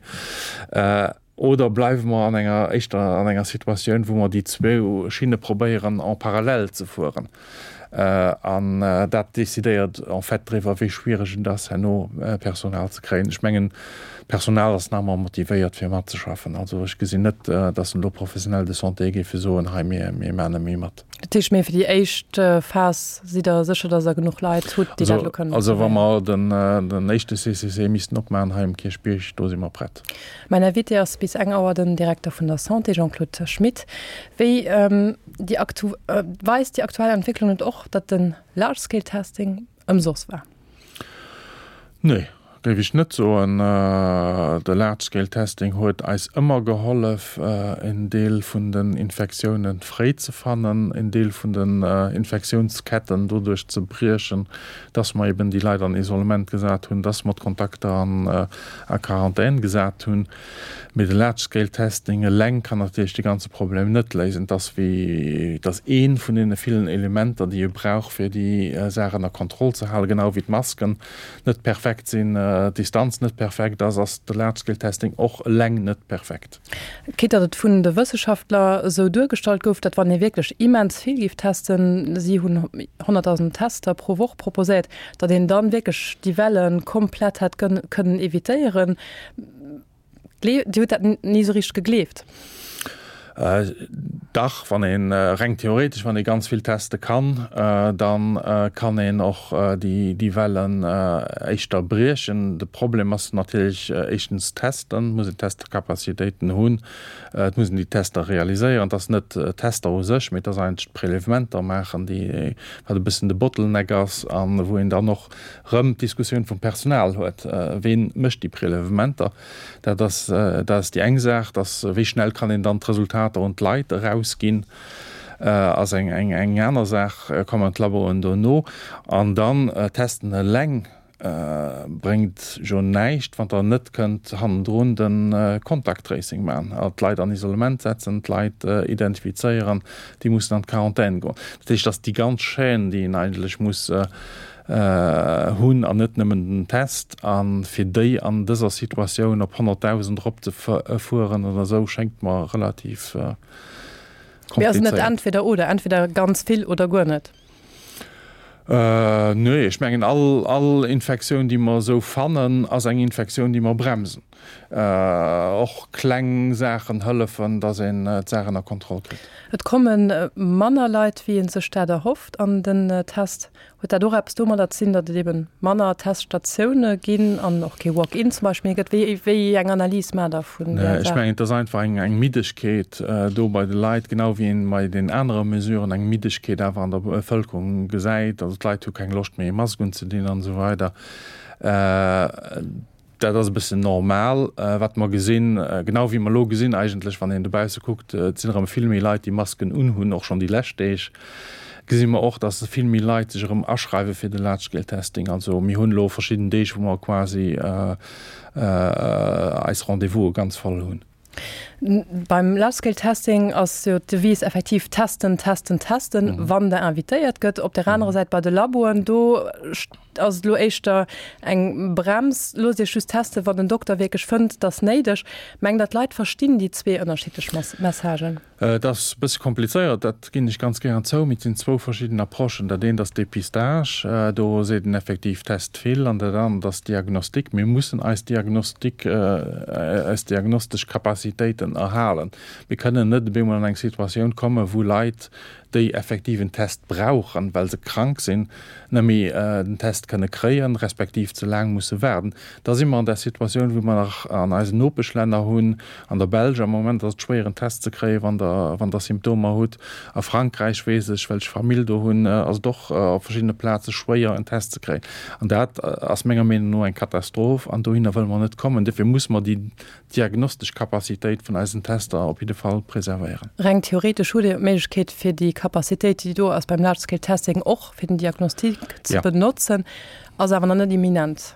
Oder bleiwe mer an enger, éischter an enger Situatioun, wou mer déi zwou Schinne probéieren en parallèle ze fueren. An dat decidéiert en fait driwwer, wéi schwiereg et ass, herno Personal ze kréien. Ech mengen, d'Personal ass nach ëmmer motivéiert, fir matzeschaffen. Also ech gesinn net, datt elo Professionnels de santé géife soen, hei, mir, mir maachen net méi mat. Dat heescht, mee fir déi éischt Phas sidd Der sécher, datt Der genuch Leit hutt, déi dat elo kënnen Also wa mer den, den éischte CCC missten opmaachen hei um Kierchbierg, do si mer prett. Mäin Invité ass bis eng Auer den Direkter vun der Santé, Jean-Claude Schmit. Wéi déi aktu weist déi aktuell Entwécklung net och, datt de Large Scale Testing ëmsoss war? Nee, géif ech net soen. De Large Scale Testing huet eis ëmmer gehollef, en Deel vun den Infektioune fréi ze fannen, en Deel vun den Infektiounsketten doduerch ze briechen, dass mer eben déi Leit an Isolement gesat hunn, dass mer d'Kontakter an a Quarantän gesat hunn. Mee de Large Scale Testing eleng kann natierlech de ganze Problem net léisen. Et ass wéi, et ass ee vun deene villen Elementer, déi ee brauch, fir déi Saach ënner Kontroll ze halen. Genau wéi d'Masken net perfekt sinn, d'Distanz net perfekt ass, ass de Large Scale Testing och eleng net perfekt. Quitte datt et vun de Wësseschaftler esou duergestallt gouf, datt wann ee wierklech immens vill géif testen, si hunn 100.000 Tester pro Woch proposéiert, datt een dann wierklech déi Welle komplett hätt kënnen evitéieren. Dir hutt dat ni esou richteg gegleeft? Dach, wann een, reng theoretesch, wann ee ganz vill teste kann, da kann een och déi Wellen éischter briechen. De Problem ass natierlech éischtens testen, et muss een Testcapacitéiten hunn, et muss een déi Tester realiséieren. Et ass net d'Tester u sech, mee et ass eigentlech d'Prélèvementer maachen, déi, wat e bëssen de Bottleneck ass a wou een dann och rëm d'Diskussioun vum Personal huet, Ween mécht déi Prélèvementer? Dat ass, dat ass déi eng Saach, dass wéi schnell kann een dann d'Resultater un d'Leit erausginn, ass eng, eng, eng aner Saach. Kommen d'Laboen dono an dann testen eleng bréngt jo näischt, wann Der net kënnt hannendrun de Contact Tracing maachen, d'Leit an Isolement setzen, d'Leit identifizéieren, déi mussen an d'Quarantän goen. Dat heescht, dass déi ganz Chaîne, déi een eigentlech muss hunn an net nëmmen den Test. A fir déi an dëser Situatioun op 100.000 eropzefueren oder esou, schéngt mer relativ komplizéiert. Mee ass et net entweder oder, entweder ganz vill oder guer net? Nee, ech mengen all, all Infektioun, déi mer esou fannen, ass eng Infektioun, déi mer bremsen. Och kleng Saachen hëllefen, dass een d'Saach ënner Kontroll kritt. Et komme manner Leit, wéi ee sech dat erhofft an den Test. Huet dat och eppes domadder ze dinn, datt et ebe manner Teststatioune ginn an och kee Walk-in zum Beispill méi gëtt? Wéi, wéi eng Analys maacht Der vun där Ech Saach? mengen, et ass einfach eng, eng Middegkeet do bei de Leit, genau wéi een bei den anere Mesuren eng Middegkeet awer an der Bevëlkerung gesäit. Also d'Leit hu keng Loscht méi e Mask unzedinn an esou weider. Dat ass e bëssen normal, wat mer gesinn, genau wéi mer elo gesinn eigentlech, wann een dobausse kuckt, et sinn erëm vill méi Leit, déi Masken unhunn, och schonn déi lescht Deeg gesi mer och, datt vill méi Leit sech erëm aschreiwe fir de Large Scale Testing. Also mir hunn elo verschidden Deeg, wou mer quasi eis Rendez-vouse ganz voll hunn. Beim Large Scale Testing ass jo d'Devise effektiv testen, testen, testen, wann der invitéiert gëtt. Op der anerer Säit bei de Laboen, do ass et elo éischter eng Brems, loosst Iech just testen, wann den Dokter wierklech fënnt, et ass néideg. Mengt Der, d'Leit verstinn déi zwee ënnerschiddlech Messagen? Et ass e bësse komplizéiert, dat ginn ech ganz gären zou, mee et sinn zwou verschidden Approchen. Dat eent ass Dépistage, do seet en effektiv, test vill, an dat anert ass Diagnostik. Mir mussen eis Diagnostik, eis diagnostesch Capacitéiten erhalen. Mir kënnen net op eemol an eng Situatioun kommen, wou Leit, déi effektiv en Test brauchen, well se krank sinn, net méi den Test kënne kréien, respektiv ze laang musse waarden. Da si mer an där Situatioun, wou mer nach an eisen Nopeschlänner hunn, an der Belsch am Moment ass et schwéier en Test ze kréien, wann Der, wann Der Symptomer hutt. A Frankräich weess ech, well ech Famill do hunn, ass et och op verschiddene Plaze schwéier en Test ze kréien. An dat ass menger Meenung no eng Katastroph an dohinner wëlle mer net kommen. Dofir muss mer déi diagnostesch Capacitéit vun eisen Tester op jidde Fall preservéieren. Reng theoretesch hutt Dir d'Méiglechkeet, fir déi Capacitéit, déi do ass beim Large Scale Testing, och fir den Diagnostic ze benotzen, ass awer nach net imminent.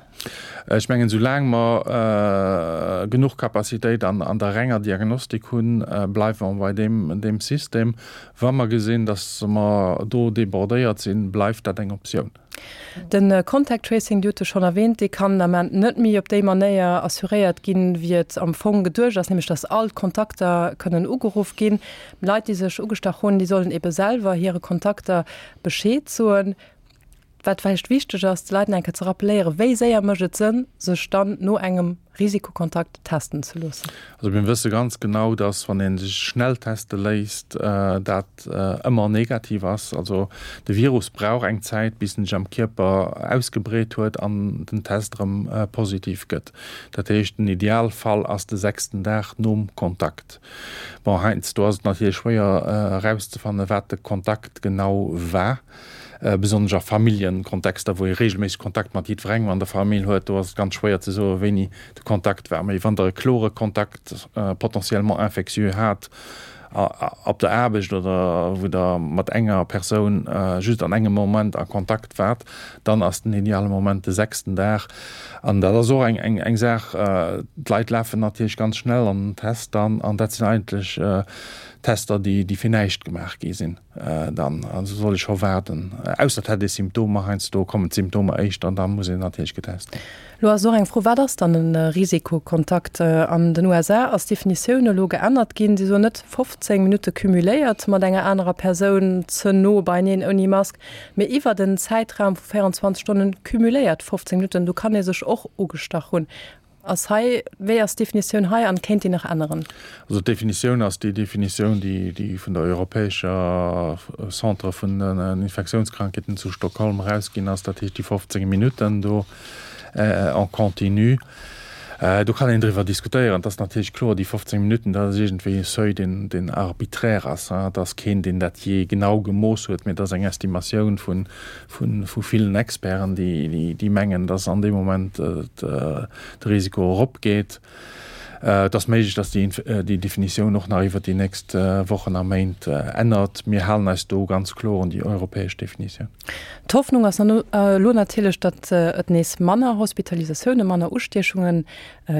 Ech mengen, soulaang mer genuch Capacitéit an der renger Diagnostik hunn, bleiwe mer bei deem System. Wa mer gesinn, datt mer do débordéiert sinn, bleift dat eng Optioun. De Contact Tracing, Dir hutt e schonn erwähnt, dee kann den Ament net méi op déi Manéier assuréiert ginn, wéi et am Fong geduecht ass, nämlech datt all d'Kontakter kënnen ugeruff ginn. Leit, déi sech ugestach hunn, déi sollen ebe selwer hire Kontakter Bescheed soen. Wat vläicht wichteg ass, de Leit nach eng Kéier ze rappeléieren, Wéi séier mécht et Sënn, sech dann no engem Risikokontakt testen ze loossen? Also mir wësse ganz genau, dass wann ee sech schnell teste léisst, dat ëmmer negativ ass. Also de Virus brauch eng Zäit, bis en sech am Kierper ausgebreet huet an den Test erëm positiv gëtt. Dat heescht, den Idealfall ass de sechsten Dag nom Kontakt. Bon, heiansdo ass et natierlech schwéier erauszefannen, wat de Kontakt genau war. Besonnesch a Familljenkontexter, wou ee reegelméisseg Kontakt mat jiddwerengem an der Famill huet, do ass et ganz schwéier ze soen, wéini de Kontakt war. Mee wann Der e klore Kontakt, potentiellement infectieux, hat op der Aarbecht oder wou Der mat enger Persoun just an engem Moment a Kontakt waart, dann ass den ideale Moment de sechsten Dag. An dat ass och eng Saach, d'Leit lafen natierlech ganz schnell an den Test dann, an dat sinn eigentlech Tester, déi fir näischt gemaach gi sinn. Dann also soll ech scho waarden, ausser et hätt ee Symptomer. Heiansdo kommen d'Symptomer éischt an da muss een natierlech getest ginn. Lo ass och eng Fro, Wat ass dann e Risikokontakt? An den USA ass d'Definitioun elo geännert ginn. Si soen net 15 Minutte cumuléiert mat enger anerer Persoun ze no beieneen ouni Mask, mee iwwert en Zäitraum vu 24 Stonnen cumuléiert 15 Minutten. Do kann ee sech och ugestach hunn. Ass hei, wéi ass d'Definitioun hei an kéint déi nach änneren? Also d'Definitioun ass déi Definitioun, déi déi vun der europäescher Centre vun den Infektiounskrankheeten zu Stockholm erausginn ass, dat heescht déi 15 Minutten do en continu. Do kann een driwwer diskutéieren. Et ass natierlech kloer, déi 15 Minutten, dat ass iergendwéi e Seuil, deen deen arbiträr ass. Et ass keen, deen dat jee genau gemooss huet, mee et ass eng Estimatioun vun vu villen Experten, déi mengen, datt an deem Moment de Risiko eropgeet. Et ass méiglech, datt déi Definitioun och nach iwwer déi nächst Wochen a Méint ännert. Mir halen eis do ganz kloer un déi europäesch Definitioun. D'Hoffnung ass elo natierlech, datt et nees manner Hospitalisatiounen, manner Ustiechunge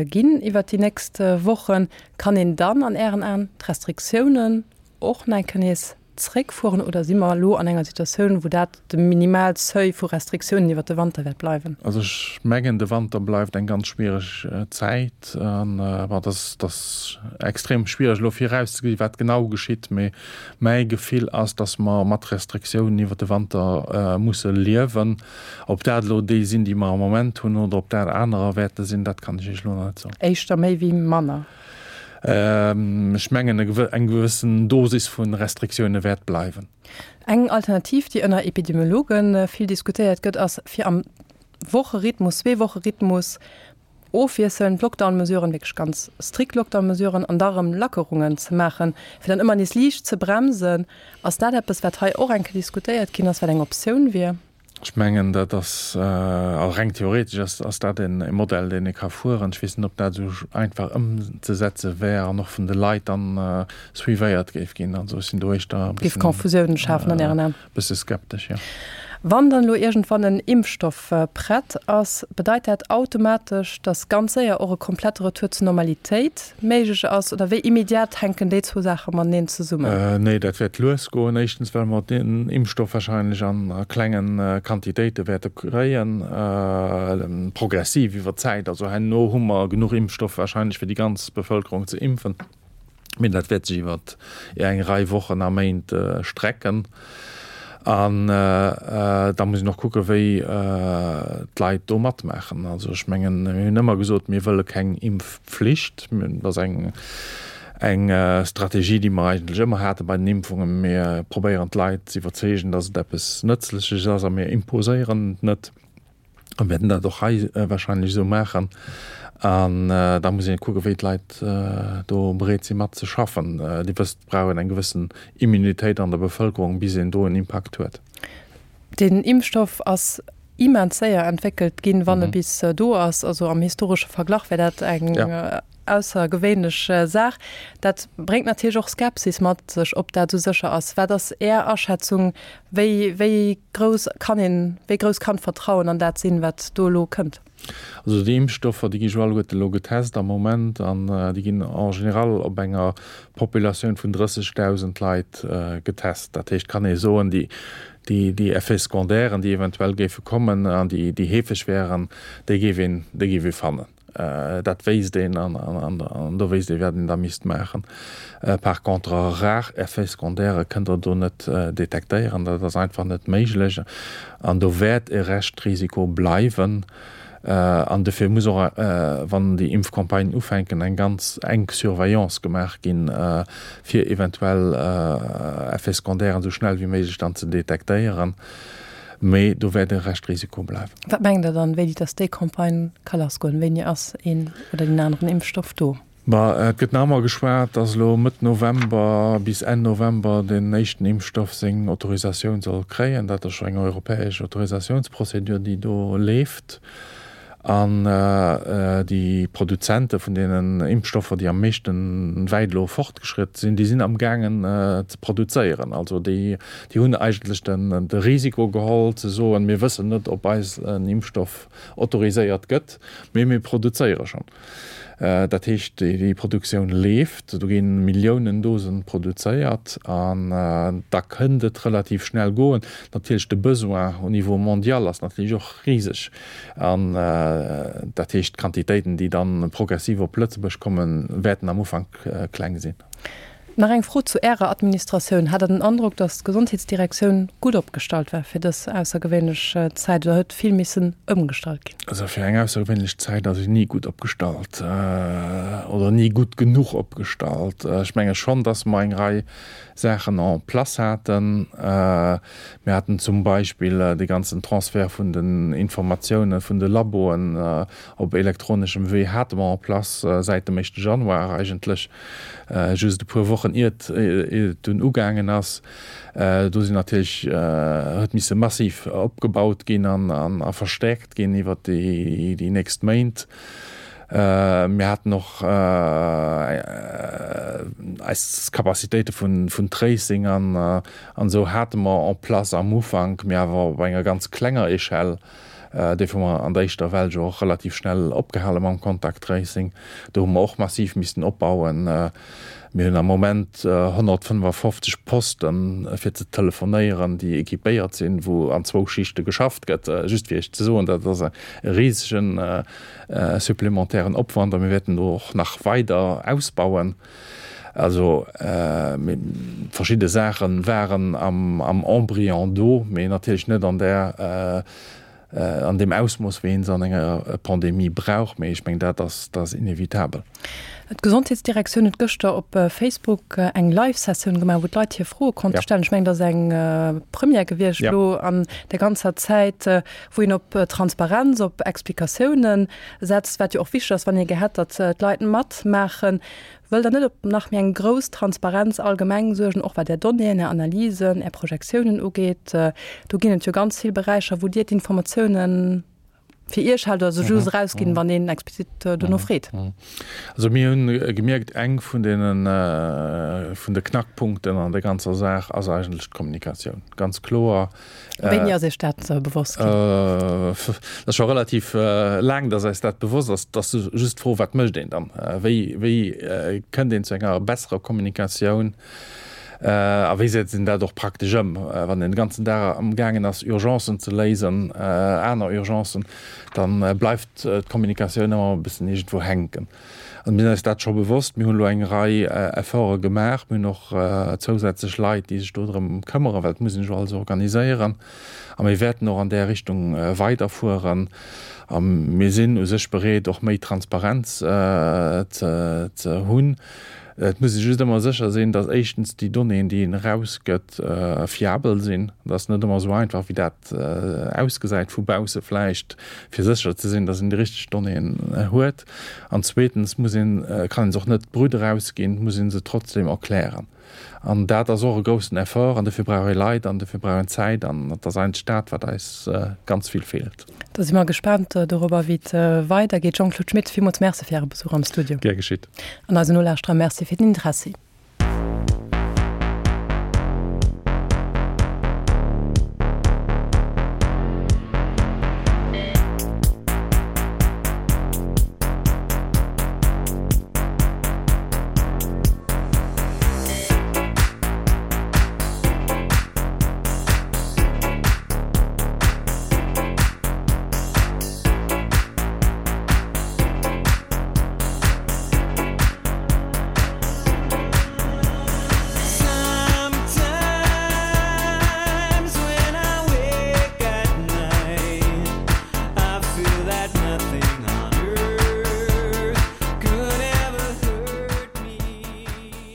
ginn iwwer déi nächst Wochen. Kann een dann an Ären Aen d'Restriktiounen och nach eng Kéier nees. zréckfueren oder si mer elo an enger Situatioun, wou dat de Minimalseuil vu Restriktiounen iwwert de Wanter wäert bleiwen? Also ech mengen, de Wanter bleift eng ganz schwiereg Zäit. An bon, et ass, et ass extrem schwiereg elo virauszegesi wat genau geschitt, mee mäi Gefill ass, datt mer mat Restriktiounen iwwert de Wanter musse liewen. Ob dat elo déi sinn, déi mer am Moment hunn, oder ob dat anerer wäerte sinn, dat kann ech Iech elo nach net soen. Éischter méi wéi manner? Ech mengen, eng gewëssen Dosis vu Restriktioune wäert bleiwen. Eng Alternativ, déi ënner Epidemiologe vill diskutéiert gëtt, ass, fir am Wocherhythmus, Zweewocherhythmus ofwiesselnd Lockdown-Mesuren, wierklech ganz strikt Lockdown-Mesuren an da erëm Lackerungen ze maachen, fir dann ëmmer nees liicht ze bremsen. Ass dat eppes, wat hei och eng Kéier diskutéiert ginn ass, wat eng Optioun wier? Ech mengen, dat ass, also reng theoretesch ass, ass dat e Modell, deen ee ka fueren. Ech weess net, ob dat esou einfach ëmzesetze wär an och vun de Leit dann suivéiert géif ginn. Also ech sinn do éischter e Géif Confusiounen schafen an Ären Aen? bësse skeptesch, jo. Wann dann elo iergendwann en Impfstoff prett ass, bedeit dat automatesch, datt ganz séier och e komplette Retour zur Normalitéit méiglech ass? Oder wéi immediat hänken déi zwou Saache mateneen zesummen? Nee, dat wäert lues goen. Éischtens, well mer den Impfstoff wahrscheinlech a klenge Quantitéite wäerte kréien, progressiv iwwer d'Zäit. Also herno hu mer genuch Impfstoff wahrscheinlech fir déi ganz Bevëlkerung ze impfen. Mee dat wäert sech iwwer eng Rei Wochen a Méint strecken. An da muss een och kucken, wéi d'Leit do matmaachen. Also ech mengen, mir hunn ëmmer gesot, mir wëlle keng Impfpflicht. Dat ass eng, eng Strategie, déi mer eigentlech ëmmer hate bei den Impfungen. Mir probéieren d'Leit ze iwwerzeegen, datt et eppes Nëtzleches ass a mir imposéieren et net. A wäerten dat och hei wahrscheinlech esou maachen. An da muss een kucken, wéi d'Leit do bereet si mat ze schaffen. Dir wësst, et brauch een eng gewëssen Immunitéit an der Bevëlkerung, bis een do en Impakt huet. Den Impfstoff ass immens séier entwéckelt ginn, wann e bis do ass. Also am historesche Verglach wär dat eng aussergewéinlech Saach. Dat bréngt natierlech och Skepsis mat sech, ob dat esou sécher ass. Wat ass Är Aschätzung? Wéi, wéi grouss kann een, wéi grouss kann d'Vertrauen an dat sinn, wat do elo kënnt? Also déi Impfstoffer, déi gi jo alleguerte elo getest am Moment an déi ginn en général op enger Populatioun vun 30.000 Leit getest. Dat heescht, kann ee soen, déi, déi, déi Effets secondairen, déi eventuell géife kommen an déi, déi heefeg wären, déi géif een, déi géif ee fannen. Dat wéisst een an do wéisst ee wat een da misst maachen. Par contre rar Effets secondaires kënnt Der do net detektéieren, dat ass einfach net méiglech an do wäert e Reschtrisiko bleiwen. An dofir muss och, wann déi Impfcampagnen ufänken, eng ganz enk Surveillance gemaach ginn, fir eventuell Effets secondairen esou schnell wéi méiglech dann ze detektéieren. Mee do wäert e Reschtrisiko bleiwen. Wat mengt Der dann, wéini dass déi Campagne ka lassgoen? Wéini ass een oder deen aneren Impfstoff do? Ma et gëtt nach ëmmer geschwat, dass elo Mëtt November bis Enn November deen éischten Impfstoff seng Autorisatioun soll kréien. Dat ass scho eng europäesch Autorisatiounsprozedur, déi do leeft. An déi Produzente vun deenen Impfstoffer, déi am meeschte wäit elo fortgeschritt sinn, déi sinn amgaangen ze produzéieren. Also déi hunn eigentlech de Risiko geholl ze soen, mir wëssen net, ob eis en Impfstoff autoriséiert gëtt, mee mir produzéiere schonn. Dat heescht, déi Produktioun leeft, do gi Milliounen Dosen produzéiert an da kënnt et relativ schnell goen. Natierlech de Besoin au niveau mondial ass natierlech och riseg an dat heescht, d'Quantitéiten, déi dann progressiv op Lëtzebuerg kommen, wäerten am Ufank kleng sinn. Nach eng Fro zu Ärer Administratioun, Hat Der den Androck, datt d'Gesondheetsdirektioun gutt opgestallt war fir dës aussergewéinlech Zäit oder huet vill missen ëmgestallt ginn? Also fir eng aussergewéinlech Zäit ass een ni gutt opgestallt oder ni gutt genuch opgestallt. Ech menge schonn, datt mer eng Rei Saachen en place haten. Mir haten zum Beispill dee ganzen Transfert vun den Informatiounen vun de Laboen op elektroneschem Wee hate mer en place säit dem éischte Januar eigentlech. just e puer Wochen iert et dunn ugaangen ass. Do sinn natierlech, huet misse massiv opgebaut ginn an a verstäerkt ginn iwwer déi nächst Méint. Mir haten och eis Capacitéite vun Tracing an esou hate mer en place am Ufank, mee awer op enger ganz klenger Echelle. Dofir hu mer an der éischter Well jo och relativ schnell opgehale mam Contact Tracing. Do hu mer och massiv missten opbauen. Mir hunn am Moment 155 Posten, fir ze telefonéieren, déi équipéiert sinn, wou an zwou Schichte geschafft gëtt. Just fir Iech ze soen, dat ass e risegen supplementairen Opwand a mir wäerten do och nach weider ausbauen. Also verschidde Saache waren am Embryon do, mee natierlech net an där, an deem Ausmooss, wéi ee se an enger Pandemie brauch. Mee ech mengen, dat ass, dat ass inevitabel. D'Gesondheetsdirektioun huet gëschter op Facebook eng Live-Sessioun gemaach, wou d'Leit hir Froe konnte stellen. Ech mengen, dat ass eng Première gewiescht elo an der ganzer Zäit, wou een op Transparenz, op Explikatiounen setzt, wat jo och wichteg ass, wann ee gär hätt, datt d'Leit matmaachen. Wëllt Der net op nach méi eng grouss Transparenz allgemeng suergen, och wat Är Donnéeën, Är Analysen, Är Projektiounen ugeet? Do ginn et jo ganz vill Beräicher, wou Dir d'Informatiounen fir Iech haalt oder se just erausginn, wann een explizit dono freet. Also mir hunn gemierkt, eng vun deenen, vun de Knackpunkten an der ganzer Saach ass eigentlech d'Kommunikatioun. Ganz kloer. Wéini ass Iech dat bewosst ginn? Dat ass scho relativ laang, datt eis dat bewosst ass. Et ass just d'Fro, wat mécht een dann? Wéi, wéi kënnt een zu enger besserer Kommunikatioun? A wéi setzt een dat och praktesch ëm? Wann een de ganzen Dag amgaangen ass, Urgencen ze léisen, aner Urgencen, da bleift d'Kommunikatioun ëmmer e bëssen iergendwou hänken. Also mir sinn eis dat scho bewosst. Mir hunn elo eng Rei Efforte gemaach. Mir hunn och zousätzlech Leit, déi sech do drëm këmmeren, well et muss een sech jo alles organiséieren. A mir wäerten och an där Richtung weiderfueren. A mir sinn u sech bereet, och méi Transparenz ze hunn. Et muss ee just ëmmer sécher sinn, datt éischtens déi Donnéeën, déi een erausgëtt, fiabel sinn. Dat ass net ëmmer esou einfach, wéi dat ausgesäit vu bausse vläicht, fir sécher ze sinn, datt een déi richteg Donnéeën huet. An zweetens muss een, kann een se och net brut erausginn, muss ee se trotzdeem erklären. An dat ass och e groussen Effort an dofir brauch ee Leit an dofir brauch een Zäit an et ass eigentlech dat, wat eis ganz vill feelt. Da si mer gespaant dorobber, wéi et weidergeet. Jean-Claude Schmit, villmools Merci fir Äre Besuch am Studio. Gär geschitt. An eisen Nolauschterer Merci fir den Interessi.